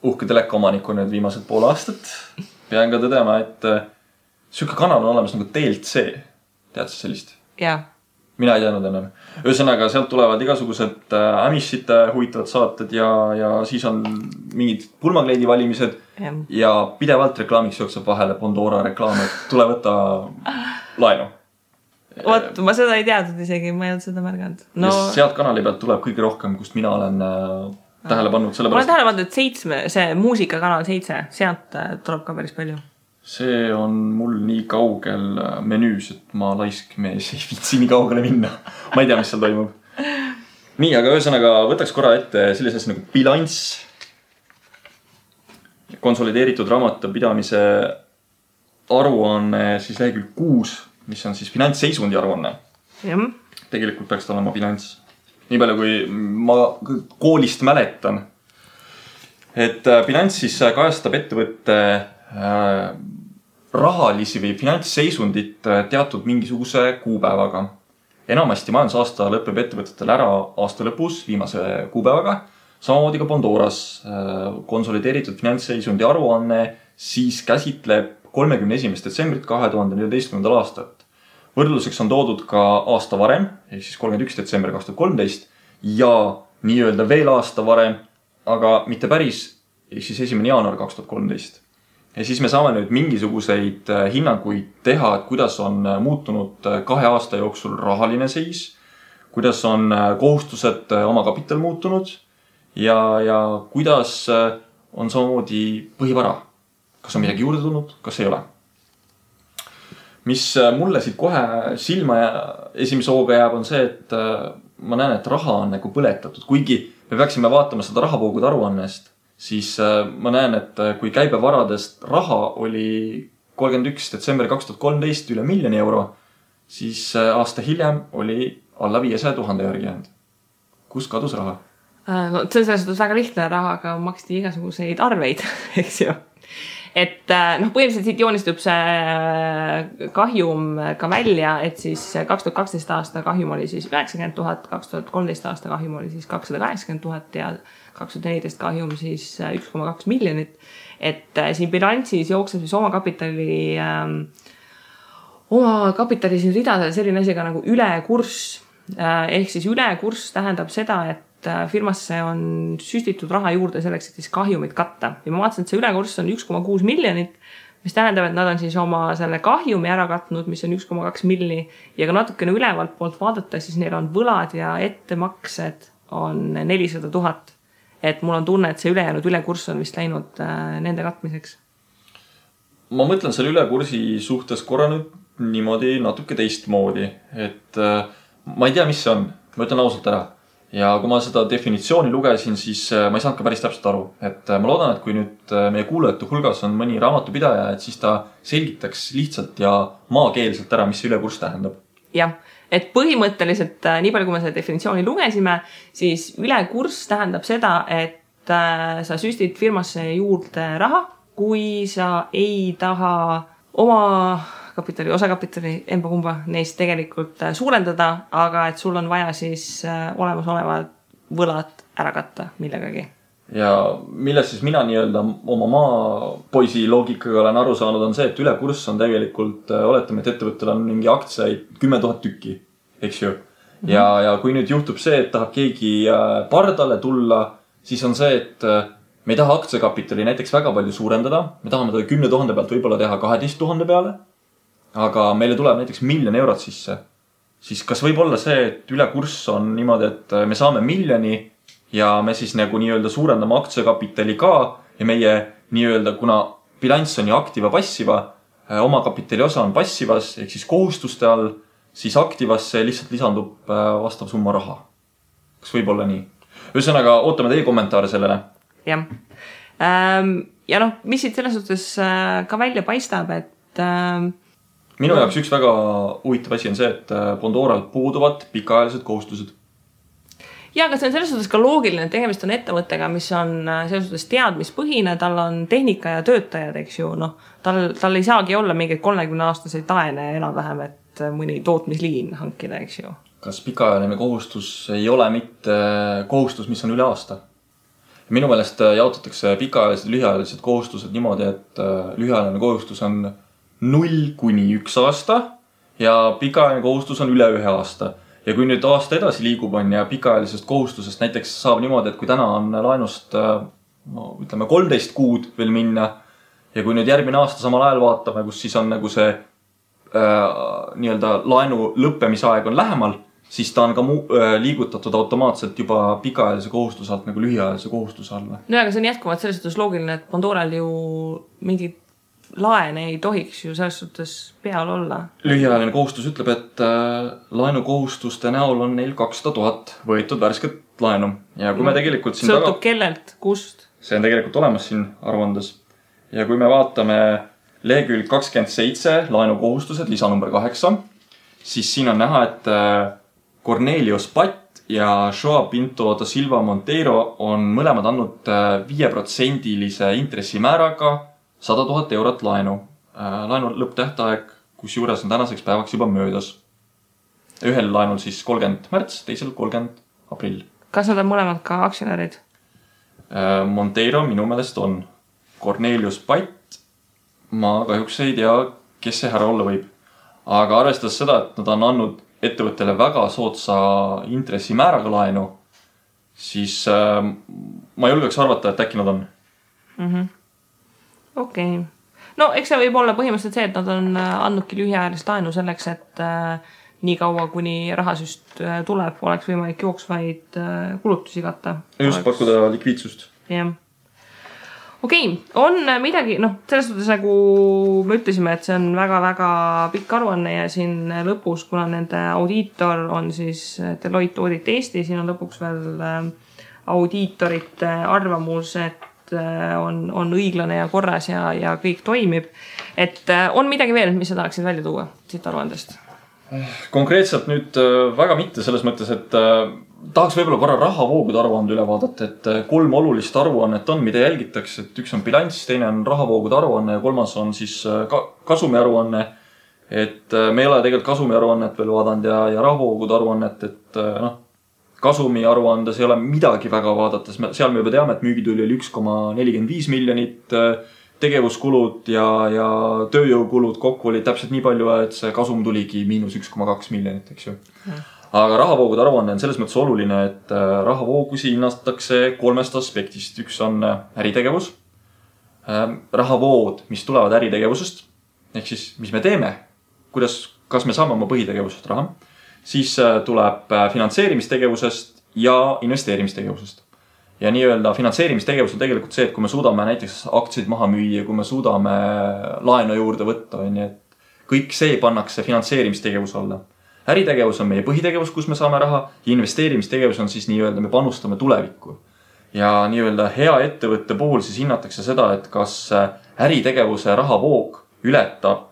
uhke telekaomaniku nüüd viimased pool aastat pean ka tõdema, et süke kanal on olemas nagu TLC. Tead sa sellist? Jaa. Mina ei teadnud ennem. Ühesõnaga, sealt tulevad igasugused ämissite huvitavad saated ja siis on mingid pulmakleidi valimised ja pidevalt reklaamiks jookseb vahele Pandora reklaam, et tule võtta laenu. Oot, ma seda ei teadnud isegi, ma ei olnud seda märganud. Ja sealt kanali pealt tuleb kõige rohkem, kust mina olen tähele pannud. Ma olen tähele pannud, et see muusikakanal 7, sealt tuleb ka päris palju. See on mul nii kaugel menüüs, et ma laisk mees ei viitsi nii kaugele minna. Ma ei tea, mis seal toimub. Nii, aga ühesõnaga võtaks korra ette sellises nagu bilanss. Konsolideeritud raamatupidamise aruanne siis lehekülg 6, mis on siis finantsseisundi aruanne. Tegelikult peaks ta olema bilanss. Nii palju, kui ma koolist mäletan. Et bilanss siis kajastab ettevõtte rahalisi või finantsseisundit teatud mingisuguse kuupäevaga. Enamasti majandusaasta lõpeb ettevõtetel ära aasta lõpus viimase kuupäevaga. Samamoodi ka Pandoras konsolideeritud finantsseisundi aruanne siis käsitleb 31. detsembrit 2014. aastat. Võrdluseks on toodud ka aasta varem, ehk siis 31. detsember 2013 ja nii-öelda veel aasta varem, aga mitte päris, ehk siis 1. jaanuar 2013. Ja siis me saame nüüd mingisuguseid hinnanguid teha, et kuidas on muutunud 2 aasta jooksul rahaline seis, kuidas on kohustused oma kapital muutunud ja kuidas on samamoodi põhivara. Kas on midagi juurde tulnud, kas ei ole? Mis mulle siit kohe silma esimese hooga jääb, on see, et ma näen, et raha on nagu põletatud. Kuigi me peaksime vaatama seda rahavoogude aruannest, siis ma näen, et kui käibevaradest raha oli 31. detsember 2013 üle 1 000 000 euro, siis aasta hiljem oli alla 500 000 järgi jäänud. Kus kadus raha? No, see on selles suhtes väga lihtne, rahaga maksti igasuguseid arveid, eks ju. Et põhimõtteliselt siit joonistub see kahjum ka välja, et siis 2012 aasta kahjum oli siis 90 000, 2013 aasta kahjum oli siis 280 000 ja 2014 kahjum siis 1,2 miljonit. Et siin bilansis jookseb siis oma kapitali siin ridades selline asi ka nagu ülekurss. Ehk siis ülekurss tähendab seda, et firmasse on süstitud raha juurde selleks, et siis kahjumit katta. Ja ma vaatasin, et see ülekurss on 1,6 miljonit, mis tähendab, et nad on siis oma selle kahjumi ära katnud, mis on 1,2 milli. Ja ka natukene ülevalt poolt vaadata, siis neil on võlad ja ettemaksed on 400 000. Et mul on tunne, et see ülejäänud ülekurss on vist läinud nende katmiseks. Ma mõtlen selle ülekursi suhtes korra nüüd niimoodi natuke teistmoodi. Et ma ei tea, mis see on. Ma ütlen ausalt ära. Ja kui ma seda definitsiooni lugesin, siis ma ei saanud ka päris täpselt aru. Et ma loodan, et kui nüüd meie kuulajate hulgas on mõni raamatupidaja, et siis ta selgitaks lihtsalt ja maakeelselt ära, mis see ülekurss tähendab. Jah, et põhimõtteliselt nii palju, kui me selle definitsiooni lugesime, siis ülekurss tähendab seda, et sa süstid firmasse juurde raha, kui sa ei taha oma kapitali, osakapitali, emba-kumba neist tegelikult suurendada, aga et sul on vaja siis olemasoleva võlad ära katta millegagi. Ja millest siis mina nii-öelda oma maapoisi loogikaga olen aru saanud on see, et ülekurss on tegelikult, oletame, et ettevõttel on mingi aktsiaid 10 000 tükki, eks ju. Ja kui nüüd juhtub see, et tahab keegi pardale tulla, siis on see, et me ei taha aktsiakapitali näiteks väga palju suurendada. Me tahame ta 10 000 pealt võib-olla teha 12 000 peale. Aga meile tuleb näiteks 1 000 000 eurot sisse. Siis kas võib olla see, et ülekurss on niimoodi, et me saame 1 000 000 ja me siis nagu nii-öelda suurendame aktsiakapitali ka ja meie nii-öelda, kuna bilanss on ju aktiva passiva, oma kapitali osa on passivas, ehk siis kohustuste all, siis aktivasse lihtsalt lisandub vastav summa raha. Kas võib olla nii? Ühesõnaga, ootame teie kommentaare sellele. Jah. Ja noh, mis siit selles suhtes ka välja paistab, et minu jaoks üks väga huvitav asi on see, et Bondoral puuduvad pikaajalised kohustused. Ja, aga see on selles suhtes ka loogiline, et tegemist on ettevõttega, mis on selles suhtes teadmispõhine, tal on tehnika ja töötajad, eks ju, noh, tal ei saagi olla mingeid 30-aastaseid laene enam-vähem, et mõni tootmisliin hankida, eks ju. Kas pikaajaline kohustus ei ole mitte kohustus, mis on üle aasta? Minu meelest jaotatakse pikaajalised ja lühiajalised kohustused niimoodi, et lühiajaline kohustus on 0 kuni 1 aasta ja pikaajaline kohustus on üle 1 aasta. Ja kui nüüd aasta edasi liigub on ja pikaajalisest kohustusest näiteks saab niimoodi, et kui täna on laenust ütleme 13 kuud veel minna ja kui nüüd järgmine aasta samal ajal vaatame, kus siis on nagu see nii-öelda laenu lõppemisaeg on lähemal, siis ta on ka liigutatud automaatselt juba pikaajalise kohustuse alt nagu lühiajalise kohustuse alla. No aga see on jätkuvalt selles suhtes loogiline, et Bondoral ju mingid laene ei tohiks ju selles suhtes peal olla. Lühiajaline kohustus ütleb, et laenukohustuste näol on neil 200 000 võetud värsket laenu. Ja kui me tegelikult siin sõltub kellelt, kust? See on tegelikult olemas siin aruandes. Ja kui me vaatame lehekülg 27, laenukohustused, lisa number 8, siis siin on näha, et Cornelius Patt ja Joao Pinto da Silva Monteiro on mõlemad andnud 5% intressimääraga 100 000 eurot laenu. Laenu lõpptähtaeg, kus juures on tänaseks päevaks juba möödas. Ühel laenul siis 30 märts, teisel 30 aprill. Kas nad on mõlemad ka aktsionärid? Monteiro minu meelest on. Cornelius Patt, ma kahjuks ei tea, kes see härra olla võib. Aga arvestades seda, et nad on andnud ettevõttele väga sootsa intressimääraga laenu, siis ma julgeks arvata, et äkki nad on. Okei. No eks see võib olla põhimõtteliselt see, et nad on andnudki lühiajalist laenu selleks, et nii kaua, kuni rahasüst tuleb, oleks võimalik jooksvaid kulutusi katta. Just pakkuda likviidsust. Jah. Okei, on midagi, noh, selles suhtes nagu me ütlesime, et see on väga-väga pikk aruanne ja siin lõpus, kuna nende audiitor on siis Deloitte Audit Eesti, siin on lõpuks veel audiitorite arvamus, et on õiglane ja korras ja kõik toimib. Et on midagi veel, mis sa tahaksid välja tuua siit aruandest? Konkreetselt nüüd väga mitte selles mõttes, et tahaks võib-olla korra rahavoogude aruande üle vaadata, et 3 olulist aruannet on, mida jälgitakse, et üks on bilanss, teine on rahavoogude aruanne ja 3. on siis kasumi aruanne. Et me ei ole tegelikult kasumi aruannet veel vaadanud ja rahavoogude aruannet, et kasumi aruandes ei ole midagi väga vaadates. Seal me juba teame, et müügituli oli 1,45 miljonit, tegevuskulud ja tööjõukulud kokku oli täpselt nii palju, et see kasum tuligi -1,2 miljonit, eks ju. Aga rahavoogude aruanne on selles mõttes oluline, et rahavoogusi hinnatakse 3 aspektist. Üks on äritegevus, rahavood, mis tulevad äritegevusest, ehk siis mis me teeme, kas me saame oma põhitegevusest raha. Siis tuleb finantseerimistegevusest ja investeerimistegevusest. Ja nii-öelda finantseerimistegevus on tegelikult see, et kui me suudame näiteks aktsiaid maha müüa, kui me suudame laenu juurde võtta, et kõik see pannakse finantseerimistegevus alla. Äritegevus on meie põhitegevus, kus me saame raha ja investeerimistegevus on siis nii-öelda me panustame tulevikku. Ja nii-öelda hea ettevõtte puhul siis hinnatakse seda, et kas äritegevuse rahavoog ületab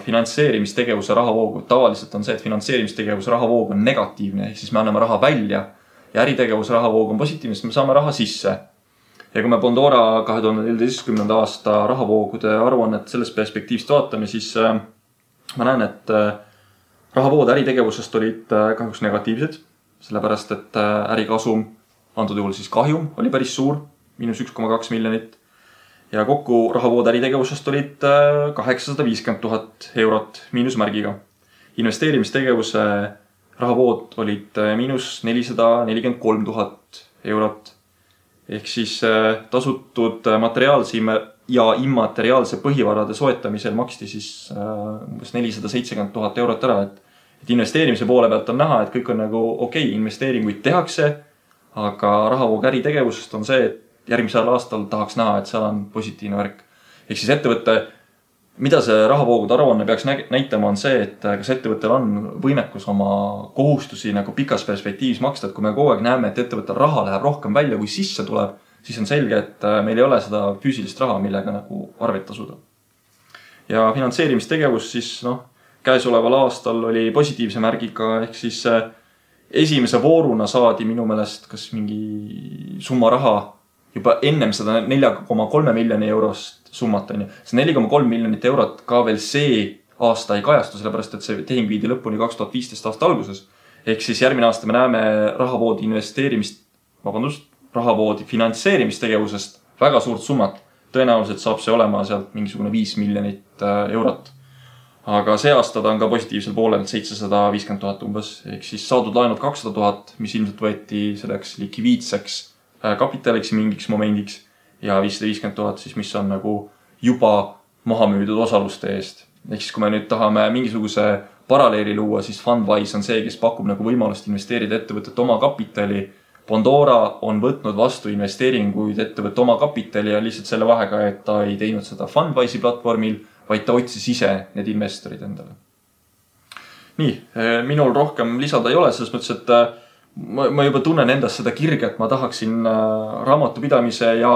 finantseerimistegevuse rahavoogu. Tavaliselt on see, et finantseerimistegevuse rahavoog on negatiivne, siis me anname raha välja ja äritegevuse rahavoog on positiivne, siis me saame raha sisse. Ja kui me Bondora 2014. aasta rahavoogude aruannet sellest perspektiivist vaatame, siis ma näen, et rahavood äritegevusest olid kahjuks negatiivsed, sellepärast et ärikasum antud juhul siis kahjum oli päris suur, -1,2 miljonit. Ja kokku rahavood äritegevusest olid 850 000 eurot miinusmärgiga. Investeerimistegevuse rahavood olid -443 000 eurot. Ehk siis tasutud materiaalse ja immateriaalse põhivarade soetamisel maksti siis umbes 470 000 eurot ära. Et investeerimise poole pealt on näha, et kõik on nagu okei, investeeringuid tehakse, aga rahavoog äritegevusest on see, et järgmisel aastal tahaks näha, et seal on positiivne värk. Ehk siis ettevõtte, mida see rahavoogude aruanne peaks näitama, on see, et kas ettevõttel on võimekus oma kohustusi nagu pikas perspektiivis maksta. Et kui me kogu aeg näeme, et ettevõttel raha läheb rohkem välja, kui sisse tuleb, siis on selge, et meil ei ole seda füüsilist raha, millega nagu arveid tasuda. Ja finantseerimistegevus siis, käesoleval aastal oli positiivse märgiga, ehk siis esimese vooruna saadi minu meelest kas mingi summa raha juba ennem seda 4,3 miljoni eurost summat. See 4,3 miljonit eurot ka veel see aasta ei kajastu, sellepärast et see tehing viidi lõpuni 2015 aasta alguses. Ehk siis järgmine aasta me näeme rahavoodi finantseerimistegevusest väga suurt summat. Tõenäoliselt saab see olema sealt mingisugune 5 miljonit eurot. Aga see aasta ta on ka positiivsel poolel 750 000 umbes. Ehk siis saadud laenud 200 000, mis ilmselt võeti selleks likviidseks kapitaliks mingiks momendiks ja 550 000 siis, mis on nagu juba maha müüdud osaluste eest. Ehk siis kui me nüüd tahame mingisuguse paralleeli luua, siis Fundwise on see, kes pakub nagu võimalust investeerida ettevõtet oma kapitali. Pandora on võtnud vastu investeeringuid ettevõtte oma kapitali ja lihtsalt selle vahega, et ta ei teinud seda Fundwise'i platvormil, vaid ta otsis ise need investorid endale. Nii, minul rohkem lisada ei ole, selles mõttes, et ma juba tunnen endast seda kirge, et ma tahaksin raamatupidamise ja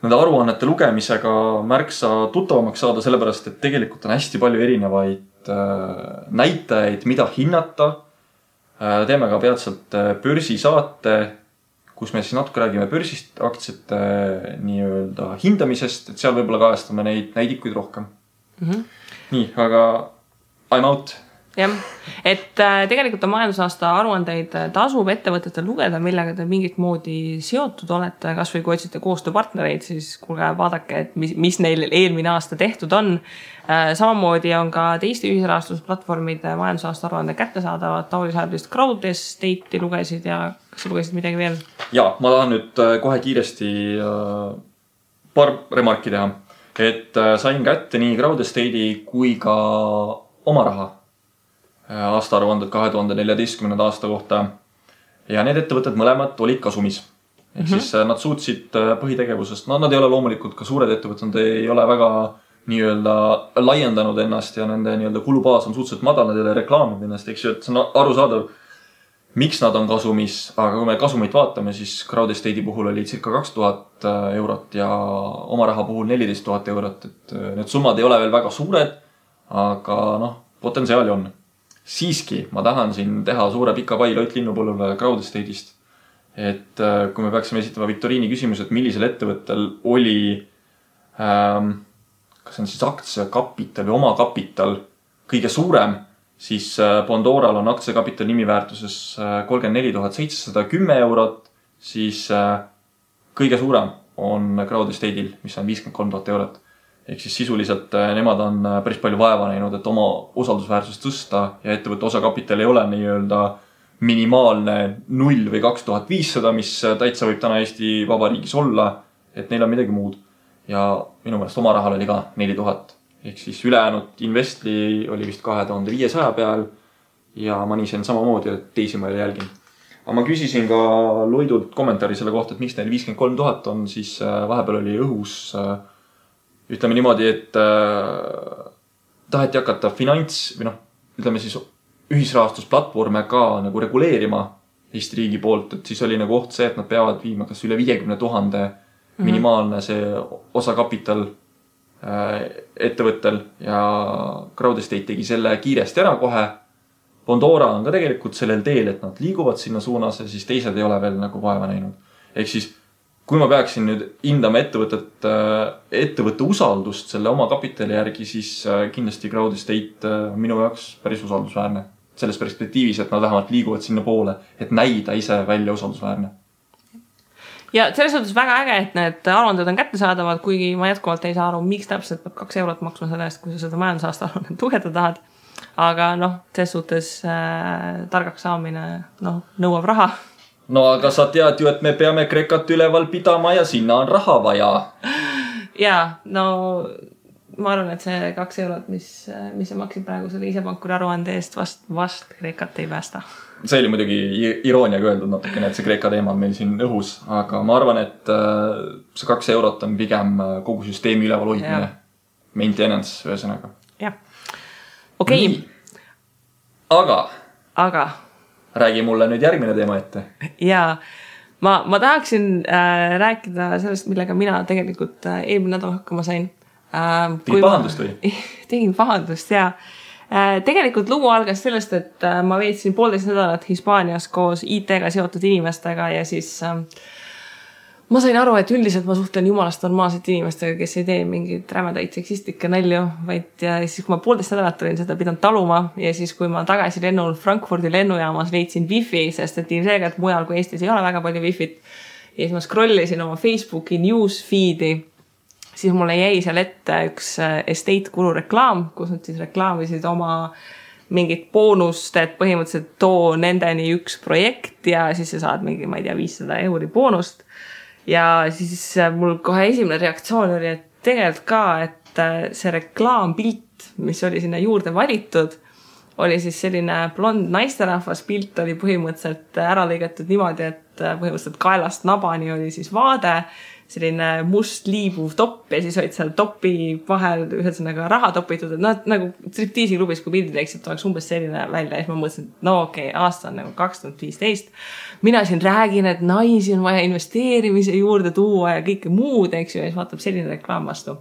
nende aruannete lugemisega märksa tuttavamaks saada, sellepärast, et tegelikult on hästi palju erinevaid näitajaid, mida hinnata. Teeme ka peatselt börsisaate, kus me siis natuke räägime börsist, aktsiate nii-öelda hindamisest, et seal võib-olla kajastame neid näidikuid rohkem. Nii, aga I'm out. Jah, et tegelikult on majandusaasta aruandeid tasub ettevõtetel lugeda, millega te mingit moodi seotud olete, kas või kui otsite koostööpartnereid, siis kuulge, vaadake, et mis neil eelmine aasta tehtud on. Samamoodi on ka teiste ühisrahastusplatvormide majandusaasta aruande kättesaadavad. Tauri Saarist Crowdestate'i lugesid ja kas sa lugesid midagi veel? Ja, ma tahan nüüd kohe kiiresti paar remarki teha, et sain kätte nii Crowdestate'i kui ka oma raha aastaaruanded 2014. aasta kohta ja need ettevõtted mõlemad olid kasumis. Ehk siis nad suutsid põhitegevusest, nad ei ole loomulikult ka suured ettevõtted, nad ei ole väga nii-öelda laiendanud ennast ja nende nii-öelda kulubaas on suhteliselt madal, nad ei ole reklaaminud ennast, eks ju, et see on arusaadav, miks nad on kasumis, aga kui me kasumit vaatame, siis Crowdestate'i puhul oli circa 2000 eurot ja oma raha puhul 14 000 eurot, et need summad ei ole veel väga suured, aga potentsiaali on. Siiski ma tahan siin teha suure pika pai Lott Linnupõllule Crowdestate'ist. Et kui me peaksime esitama viktoriini küsimus, et millisel ettevõttel oli kas on siis aktsiakapital või oma kapital kõige suurem, siis Pandoral on aktsiakapital nimiväärtuses 34 710 eurot, siis kõige suurem on Crowdestate'il, mis on 53 000 eurot. Ehk siis sisuliselt nemad on päris palju vaeva näinud, et oma usaldusväärsust tõsta ja ettevõtte osakapital ei ole nii-öelda minimaalne 0 või 2500, mis täitsa võib täna Eesti Vabariigis olla, et neil on midagi muud. Ja minu meelest oma rahal oli ka 4000. Ehk siis ülejäänud Investli oli vist 2500 peal ja ma nii sen samamoodi, et teisi ma ei jälgin. Aga ma küsisin ka Loidult kommentaari selle kohta, et miks neil 53 000 on, siis vahepeal oli õhus ütleme niimoodi, et taheti hakata ütleme siis ühisrahastusplatvorme ka nagu reguleerima Eesti riigi poolt, et siis oli nagu oht see, et nad peavad viima kas üle 50 000 minimaalne see osakapital ettevõttel ja Crowdestate tegi selle kiiresti ära kohe. Pandora on ka tegelikult sellel teel, et nad liiguvad sinna suunas ja siis teised ei ole veel nagu vaeva näinud. Ehk siis kui ma peaksin nüüd hindama ettevõtte usaldust selle oma kapitali järgi, siis kindlasti Crowdestate minu jaoks päris usaldusväärne. Selles perspektiivis, et nad vähemalt liiguvad sinna poole, et näida ise välja usaldusväärne. ja selles suhtes väga äge, et need aruanded on kättesaadavad, kuigi ma jätkuvalt ei saa aru, miks täpselt peab 2 eurot maksma selle eest, kui sa seda majandusaasta aruannet lugeda tahad. Aga selles suhtes targaks saamine nõuab raha. No aga sa tead ju, et me peame Kreekat üleval pidama ja sinna on raha vaja. Ja, no ma arvan, et see 2 eurot, mis sa maksid praegu selle isepankuri aruande eest, vast Kreekat ei päästa. See oli muidugi irooniaga öeldud natukene, et see Kreeka teema on meil siin õhus, aga ma arvan, et see 2 eurot on pigem kogu süsteemi üleval hoidmine. Maintenance, ühesõnaga. Jah. Okei. Aga räägi mulle nüüd järgmine teema ette. Jaa. Ma tahaksin rääkida sellest, millega mina tegelikult eelmine nädal hakkama sain. Tegid pahandust või? Tegin pahandust, jaa. Tegelikult lugu algas sellest, et ma veetsin 1,5 nädalat Hispaanias koos IT-ga seotud inimestega ja siis ma sain aru, et üldiselt ma suhtlen jumalast normaalsete inimestega, kes ei tee mingid rämedaid seksistlikke nalju, vaid ja siis kui ma 1,5 nädalat olin seda pidanud taluma ja siis kui ma tagasi lennul Frankfurdi lennujaamas leidsin wifi, sest et ilmselgelt mujal kui Eestis ei ole väga palju wifit ja siis ma scrollisin oma Facebooki newsfeedi, siis mulle jäi seal ette üks estate kulu reklaam, kus nad siis reklaamisid oma mingit boonust, et põhimõtteliselt too nendeni üks projekt ja siis sa saad mingi, ma ei tea, 500 euri boonust. Ja siis mul kohe esimene reaktsioon oli, et tegelikult ka, et see reklaampilt, mis oli sinna juurde valitud, oli siis selline blond naisterahvas pilt oli põhimõtteliselt ära lõigatud niimoodi, et põhimõtteliselt kaelast nabani oli siis vaade, selline must liibuv topp ja siis olid seal topi vahel ühesõnaga raha topitud, et nagu striptiisi klubis, kui pildi teeksid, oleks umbes selline välja ja siis ma mõtlesin, et okei, aasta on nagu 2015. Mina siin räägin, et naisi on vaja investeerimise juurde tuua ja kõike muud, eks ju, ja siis vaatab selline reklaam vastu.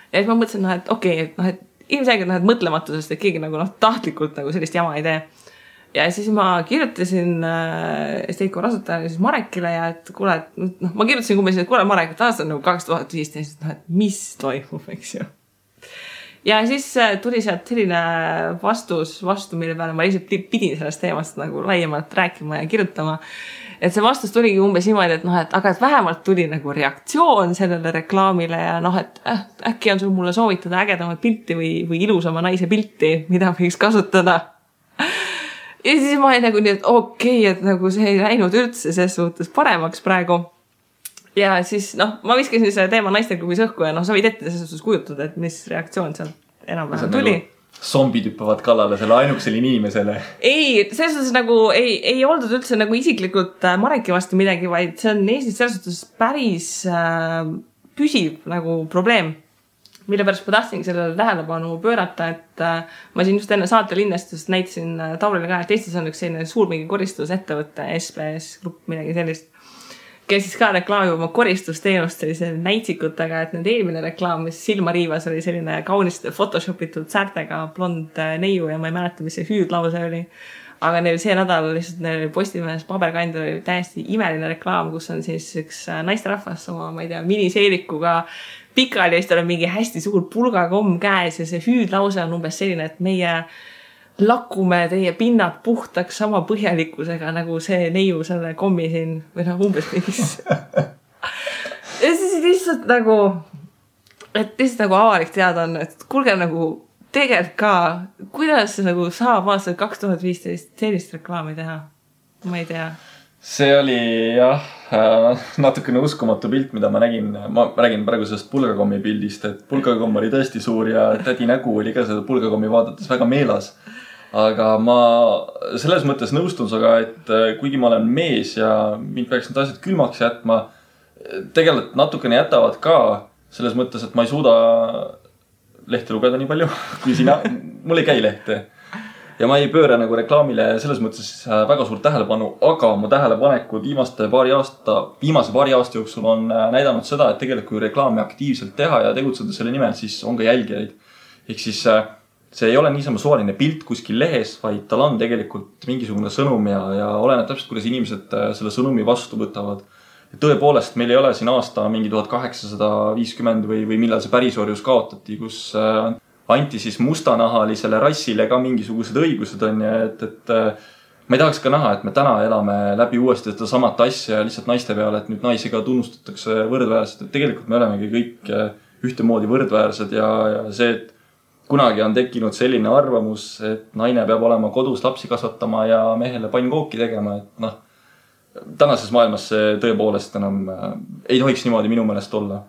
Ja siis ma mõtlesin, et okei, et ilmselgelt mõtlematusest, et keegi nagu tahtlikult nagu sellist jama ei tee. Ja siis ma kirjutasin Esteiko rasutajale siis Marekile ja et kuule, ma kirjutasin kummes, et kuule Marek, et aasta on nagu 2015, et mis toimub, eks ju. Ja siis tuli sealt selline vastu, mille peale ma lihtsalt pidin sellest teemast nagu laiemalt rääkima ja kirjutama. Et see vastus tuligi umbes niimoodi, et aga et vähemalt tuli nagu reaktsioon sellele reklaamile ja et äkki on sul mulle soovitada ägedamat pilti või ilusama naise pilti, mida võiks kasutada. Ja siis ma olin nagu nii, et okei, et nagu see ei läinud üldse ses suhtes paremaks praegu. Ja siis, ma viskasin selle teema naisteklubis õhku ja sa võid ette ses suhtes kujutada, et mis reaktsioon seal enam-vähem tuli. Nagu zombid hüppavad kallale selle ainukesele inimesele. Ei, ses suhtes nagu ei oldud üldse nagu isiklikult Mareki vastu midagi, vaid see on Eestis selles suhtes päris püsiv nagu probleem. Mille pärast ma tahtsingi sellele tähelepanu pöörata, et ma siin just enne saate linnestust näitasin Taurile ka, et Eestis on üks selline suur mingi koristusettevõte, SPS grupp, midagi sellist, kes siis ka reklaamib oma koristusteenust sellise näitsikutega, et nüüd eelmine reklaam, mis silma riivas, oli selline kauniste photoshopitud säärtega blond neiu ja ma ei mäleta, mis see hüüdlause oli. Aga neil see nädal lihtsalt neil Postimehes paberkandil oli täiesti imeline reklaam, kus on siis üks naisterahvas oma, ma ei tea, miniseelikuga pikali ja siis tal on mingi hästi suur pulgakomm käes ja see hüüdlause on umbes selline, et meie lakume teie pinnad puhtaks sama põhjalikkusega nagu see neiu selle kommi siin või umbes mingis. Ja siis lihtsalt nagu, et lihtsalt nagu avalik teada on, et kuulge nagu tegelikult ka, kuidas nagu saab aastal 2015 sellist reklaami teha? Ma ei tea. See oli jah, natukene uskumatu pilt, mida ma nägin. Ma räägin praegu sellest pulgakommi pildist, et pulgakomm oli tõesti suur ja tädi nägu oli ka seda pulgakommi vaadates väga meelas. Aga ma selles mõttes nõustun saga, et kuigi ma olen mees ja mind peaks need asjad külmaks jätma, tegelikult natukene jätavad ka selles mõttes, et ma ei suuda lehte lugeda nii palju, kui sina, mul ei käi lehte. Ja ma ei pööra nagu reklaamile selles mõttes väga suurt tähelepanu, aga mu tähelepanekud viimase paari aasta jooksul on näidanud seda, et tegelikult kui reklaami aktiivselt teha ja tegutseda selle nimel, siis on ka jälgijaid. Ehk siis see ei ole niisama suvaline pilt kuskil lehes, vaid tal on tegelikult mingisugune sõnum ja oleneb täpselt, kuidas inimesed selle sõnumi vastu võtavad. Ja tõepoolest, meil ei ole siin aasta mingi 1850 või millal see pärisorjus kaotati, kus anti siis mustanahalisele rassile ka mingisugused õigused on ja et ma ei tahaks ka näha, et me täna elame läbi uuesti seda samat asja lihtsalt naiste peale, et nüüd naisi ka tunnustatakse võrdväärselt, et tegelikult me olemegi kõik ühtemoodi võrdväärsed ja see, et kunagi on tekkinud selline arvamus, et naine peab olema kodus lapsi kasvatama ja mehele pannkooki tegema, et noh, tänases maailmas see tõepoolest enam ei tohiks niimoodi minu meelest olla.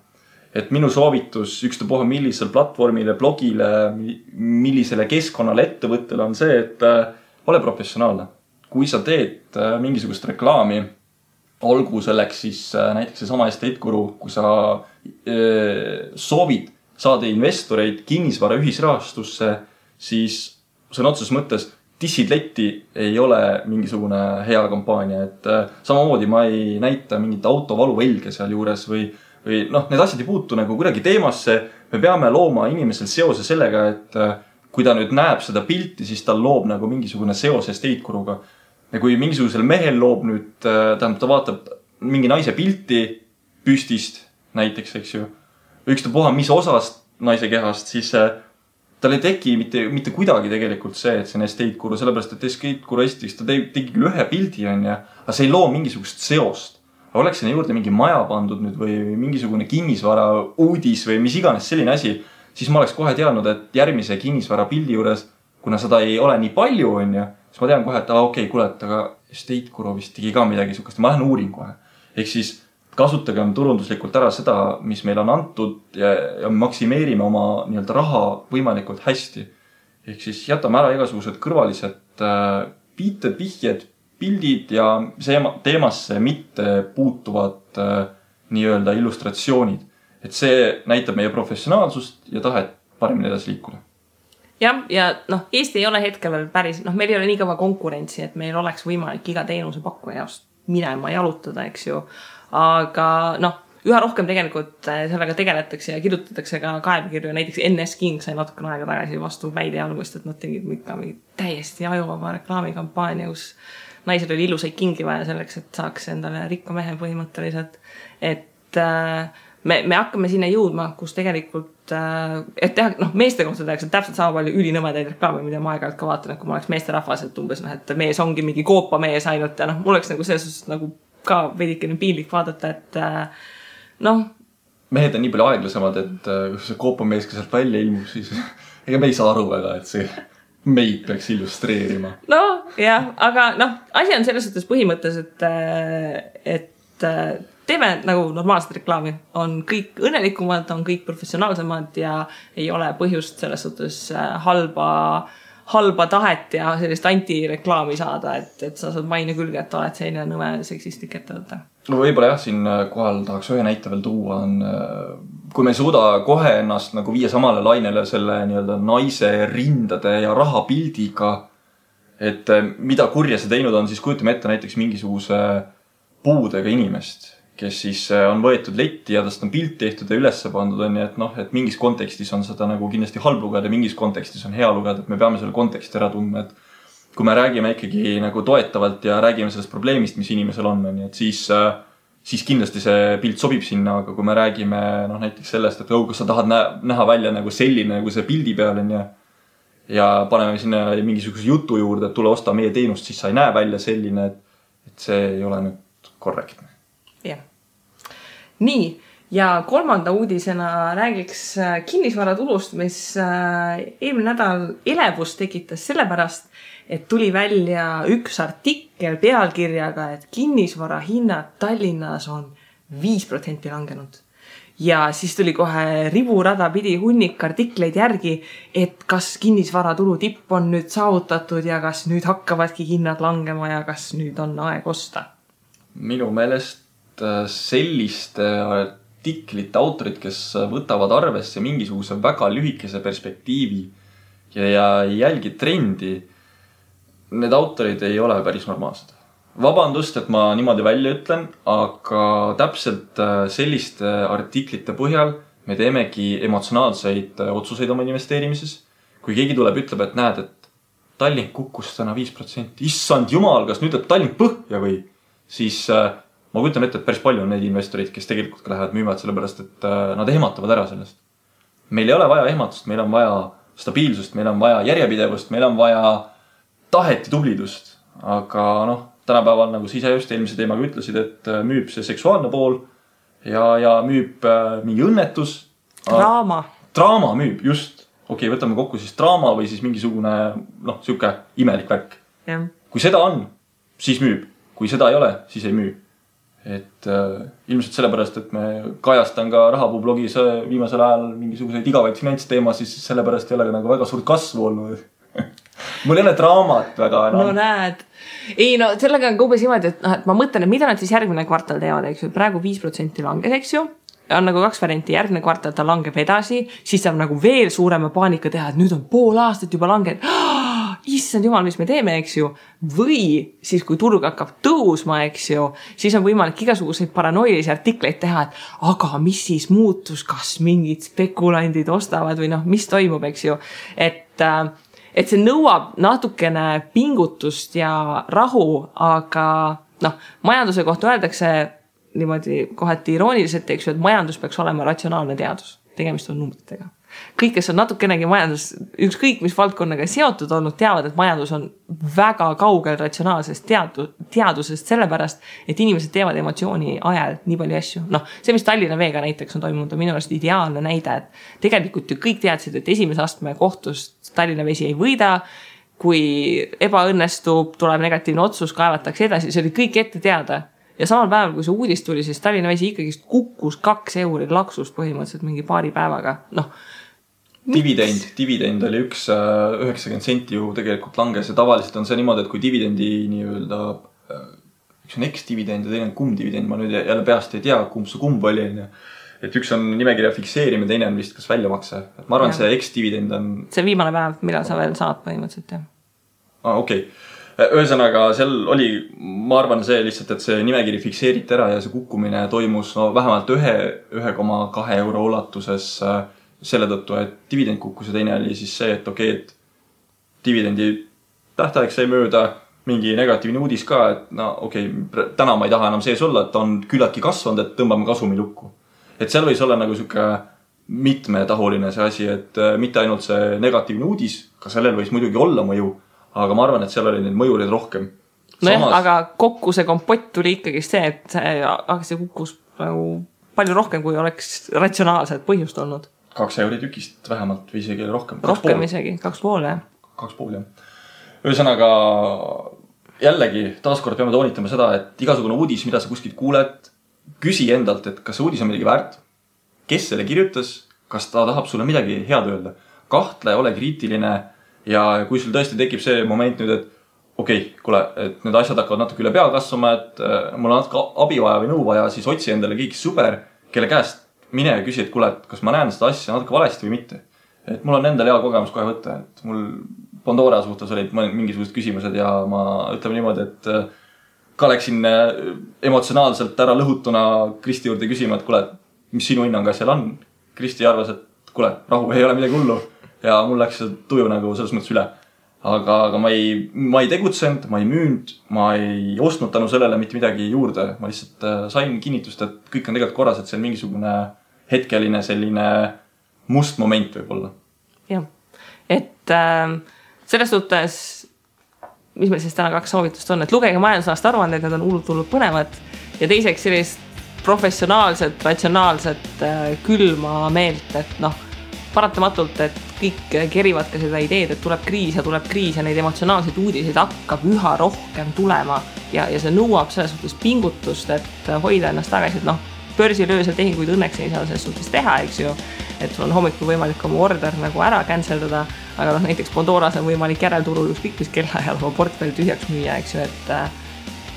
Et minu soovitus ükstapuha millisel platvormile, blogile, millisele keskkonnale ettevõttele on see, et ole professionaalne. Kui sa teed mingisugust reklaami, olgu selleks siis näiteks see sama Estate-Guru, kui sa soovid saada investoreid kinnisvara ühisrahastusse, siis sõna otseses mõttes dissid letti ei ole mingisugune hea kampaania. Et samamoodi ma ei näita mingit autovaluvälge seal juures või noh, need asjad ei puutu nagu kuidagi teemasse. Me peame looma inimesel seose sellega, et kui ta nüüd näeb seda pilti, siis tal loob nagu mingisugune seos Estate-Guruga. Ja kui mingisugusel mehel loob nüüd, tähendab, ta vaatab mingi naise pilti püstist näiteks, eks ju, ükstapuha mis osast naise kehast, siis tal ei teki mitte kuidagi tegelikult see, et see on Estate-Guru, sellepärast, et Estate-Guru esiteks ta tegi küll ühe pildi, aga see ei loo mingisugust seost. Aga oleks sinna juurde mingi maja pandud nüüd või mingisugune kinnisvara uudis või mis iganes selline asi, siis ma oleks kohe teadnud, et järgmise kinnisvara pildi juures, kuna seda ei ole nii palju, siis ma tean kohe, et okei, kuule, et aga Estate-Guru vist tegi ka midagi sukast. Ma lähen uurin kohe. Ehk siis kasutagem turunduslikult ära seda, mis meil on antud ja maksimeerime oma nii-öelda raha võimalikult hästi. Ehk siis jätame ära igasugused kõrvalised viited, vihjed, pildid ja teemasse mitte puutuvad nii-öelda illustratsioonid. Et see näitab meie professionaalsust ja tahet paremini edasi liikuda. Ja Eesti ei ole hetkel veel päris, meil ei ole nii kõva konkurentsi, et meil oleks võimalik iga teenuse pakkuja jaost minema jalutada, eks ju. Aga üha rohkem tegelikult sellega tegeletakse ja kirjutatakse ka kaebekirju. Näiteks NS King sai natukene aega tagasi vastu väide algust, et nad tegid täiesti ajuvaba reklaamikampaania, kus naisel oli ilusaid kingi vaja selleks, et saaks endale rikka mehe põhimõtteliselt. Et me hakkame sinna jõudma, kus tegelikult, et teha, meeste kohta tehakse täpselt sama palju ülinõmedaid reklaame, mida ma aeg-ajalt ka vaatan, et kui ma oleks meeste rahvas, et umbes, et mees ongi mingi koopa mees ainult ja mul oleks nagu selles nagu ka veidikene piinlik vaadata, et mehed on nii palju aeglasemad, et kui see koopa mees ka sealt välja ilmub, siis ega me ei saa aru väga, et see meid peaks illustreerima. Aga asi on selles suhtes põhimõttes, et teeme nagu normaalset reklaami. On kõik õnnelikumad, on kõik professionaalsemad ja ei ole põhjust selles suhtes halba tahet ja sellist antireklaami saada, et sa saad maine külge, et oled selline nõme seksistik ettevõte. Võib-olla jah, siin kohal tahaks ühe näite veel tuua. Kui me ei suuda kohe ennast nagu viia samale lainele selle nii-öelda naise rindade ja rahapildiga, et mida kurja see teinud on, siis kujutame ette näiteks mingisuguse puudega inimest, kes siis on võetud letti ja tast on pilt tehtud ja ülesse pandud on, et mingis kontekstis on seda nagu kindlasti halb lugeda ja mingis kontekstis on hea lugeda, et me peame selle konteksti ära tundma, et kui me räägime ikkagi nagu toetavalt ja räägime sellest probleemist, mis inimesel on, et siis kindlasti see pilt sobib sinna, aga kui me räägime näiteks sellest, et kas sa tahad näha välja nagu selline, nagu see pildi peal on ja paneme sinna mingisuguse jutu juurde, et tule osta meie teenust, siis sa ei näe välja selline, et see ei ole nüüd korrektne. Jah. Nii, ja kolmanda uudisena räägiks kinnisvaratulust, mis eelmine nädal elevust tekitas sellepärast, et tuli välja üks artikkel pealkirjaga, et kinnisvara hinnad Tallinnas on 5% langenud. Ja siis tuli kohe riburada pidi hunnik artikleid järgi, et kas kinnisvaratulu tipp on nüüd saavutatud ja kas nüüd hakkavadki hinnad langema ja kas nüüd on aeg osta. Minu meelest selliste artiklite autorid, kes võtavad arvesse mingisuguse väga lühikese perspektiivi ja jälgi trendi, need autorid ei ole päris normaalsed. Vabandust, et ma niimoodi välja ütlen, aga täpselt selliste artiklite põhjal me teemegi emotsionaalseid otsuseid oma investeerimises. Kui keegi tuleb, ütleb, et näed, et Tallink kukkus täna 5%. Issand jumal, kas nüüd läheb Tallink põhja või? Siis ma kujutan ette, et päris palju on neid investorid, kes tegelikult ka lähevad müüvad sellepärast, et nad ehmatavad ära sellest. Meil ei ole vaja ehmatust, meil on vaja stabiilsust, meil on vaja järjepidevust, meil on vaja tahet ja tublidust. aga noh, tänapäeval nagu sa ise just eelmise teemaga ütlesid, et müüb see seksuaalne pool ja müüb mingi õnnetus. Draama müüb, just. Okei, võtame kokku siis draama või siis mingisugune, noh, siuke imelik värk. Ja. Kui seda on, siis müüb. Kui seda ei ole, siis ei müü. Et ilmselt sellepärast, et me kajastan ka Rahapuu blogis viimasel ajal mingisuguseid igavaid finantsteema, siis sellepärast ei ole nagu väga suurt kasvu olnud. Mul ei ole draamat väga enam. No näed. Ei, no sellega on umbes niimoodi, et ma mõtlen, et mida nad siis järgmine kvartal teevad, eks ju. Praegu 5% langes, eks ju. On nagu 2 varianti, järgmine kvartal ta langeb edasi, siis saab nagu veel suurema paanika teha, et nüüd on pool aastat juba langed. Issand jumal, mis me teeme, eks ju. Või siis, kui turg hakkab tõusma, eks ju, siis on võimalik igasuguseid paranoilisi artikleid teha, et aga mis siis muutus, kas mingid spekulandid ostavad või noh, mis toimub, eks ju. Et see nõuab natukene pingutust ja rahu, aga noh, majanduse kohta öeldakse niimoodi kohati irooniliselt, eks ju, et majandus peaks olema ratsionaalne teadus. Tegemist on numbritega. Kõik, kes on natukenegi majandus, ükskõik mis valdkonnaga seotud olnud, teavad, et majandus on väga kaugel ratsionaalsest teadusest sellepärast, et inimesed teevad emotsiooni ajal nii palju asju. Noh, see, mis Tallinna Veega näiteks on toimunud, on minu arust ideaalne näide, et tegelikult ju kõik teadsid, et esimese astme kohtust Tallinna Vesi ei võida, kui ebaõnnestub, tuleb negatiivne otsus, kaevatakse edasi, see oli kõik ette teada. Ja samal päeval, kui see uudis tuli, siis Tallinna Vesi ikkagi kukkus 2 euri laksust põhimõtteliselt mingi paari päevaga. Noh, dividend oli 90 senti ju tegelikult langes ja tavaliselt on see niimoodi, et kui dividendi nii-öelda üks on X-dividend ja teine on kumb-dividend, ma nüüd jälle peast ei tea, kumb see kumb oli. Et üks on nimekirja fikseerimine, teine on vist kas väljamakse. Et ma arvan, see X-dividend on... See viimane päev, millal sa veel saad põhimõtteliselt, jah. Okei. Ühesõnaga, seal oli, ma arvan see lihtsalt, et see nimekiri fikseeriti ära ja see kukkumine toimus vähemalt 1,2 euro ulatuses selle tõttu, et dividend kukkus ja teine oli siis see, et et dividendi tähtaeg sai mööda, mingi negatiivne uudis ka, et täna ma ei taha enam sees olla, et on küllaltki kasvanud, et tõmbame kasumi lukku. Et seal võis olla nagu siuke mitmetahuline see asi, et mitte ainult see negatiivne uudis, ka sellel võis muidugi olla mõju, aga ma arvan, et seal oli neid mõjurid rohkem. Samas... aga kokku see kompott tuli ikkagi see, et see kukkus palju rohkem, kui oleks ratsionaalselt põhjust olnud. 2 euri tükist vähemalt või isegi rohkem. Rohkem isegi, 2,5 jah. 2,5 jah. Ühesõnaga, jällegi taaskord peame toonitama seda, et igasugune uudis, mida sa kuskilt kuuled, küsi endalt, et kas see uudis on midagi väärt, kes selle kirjutas, kas ta tahab sulle midagi head öelda. Kahtle, ole kriitiline ja kui sul tõesti tekib see moment nüüd, et kuule, et need asjad hakkavad natuke üle pea kasvama, et mul on natuke abi vaja või nõu vaja, siis otsi endale kõik super, kelle käest mine ja küsi, et kuule, et kas ma näen seda asja natuke valesti või mitte. Et mul on endal hea kogemus kohe võtta, et mul Pandora suhtes olid mingisugused küsimused ja ma ütleme niimoodi, et ka läksin emotsionaalselt ära lõhutuna Kristi juurde küsima, et kuule, mis sinu hinnang asjal on. Kristi arvas, et kuule, rahu, ei ole midagi hullu. Ja mul läks see tuju nagu selles mõttes üle. Aga ma ei tegutsenud, ma ei müünud, ma ei ostnud tänu sellele mitte midagi juurde. Ma lihtsalt sain kinnitust, et kõik on tegelikult korras, et see on mingisugune hetkeline selline must moment võib-olla. Jah, et selles suhtes, mis meil siis täna 2 soovitust on, et lugege majandusaasta aruandeid, need on hullult põnevad ja teiseks sellist professionaalset, ratsionaalset külma meelt, et noh, paratamatult, et kõik kerivad ka seda ideed, et tuleb kriis ja neid emotsionaalseid uudiseid hakkab üha rohkem tulema ja see nõuab selles suhtes pingutust, et hoida ennast tagasi, et noh, börsilöösel tehinguid õnneks ei saa selles suhtes teha, eks ju, et sul on hommikul võimalik oma order nagu ära canceldada, aga noh, näiteks Pandoras on võimalik järelturul ükskõik mis kellaajal oma portfell tühjaks müüa, eks ju, et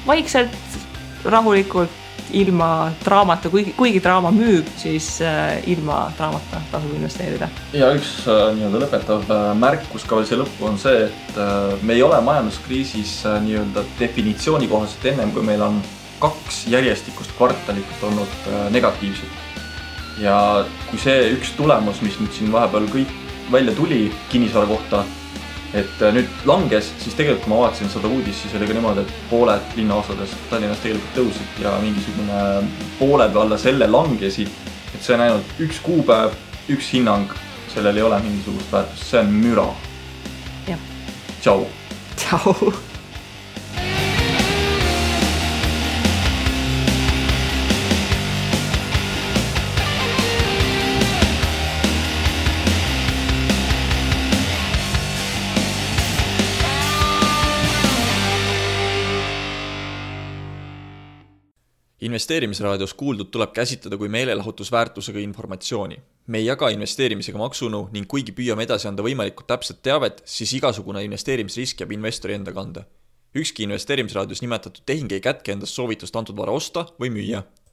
vaikselt, rahulikult, ilma draamata, kuigi draama müüb, siis ilma draamata tasub investeerida. Ja üks nii-öelda lõpetav märkus ka veel see lõppu on see, et me ei ole majanduskriisis nii-öelda definitsiooni kohaselt ennem, kui meil on 2 järjestikust kvartalit olnud negatiivsed. Ja kui see üks tulemus, mis nüüd siin vahepeal kõik välja tuli kinnisvara kohta, et nüüd langes, siis tegelikult kui ma vaatasin seda uudis, siis oli ka niimoodi, et pooled linnaosades Tallinnas tegelikult tõusid ja mingisugune poole peale selle langesid, et see on ainult 1 kuupäev, 1 hinnang, sellel ei ole mingisugust väärtust, see on müra. Jah. Tšau. Tšau. Investeerimisraadios kuuldud tuleb käsitleda kui meelelahutusväärtusega informatsiooni. Me ei jaga investeerimisega maksunu ning kuigi püüame edasi anda võimalikult täpset teavet, siis igasugune investeerimisrisk jääb investori enda kanda. Ükski investeerimisraadios nimetatud tehing ei kätke endast soovitust antud vara osta või müüa.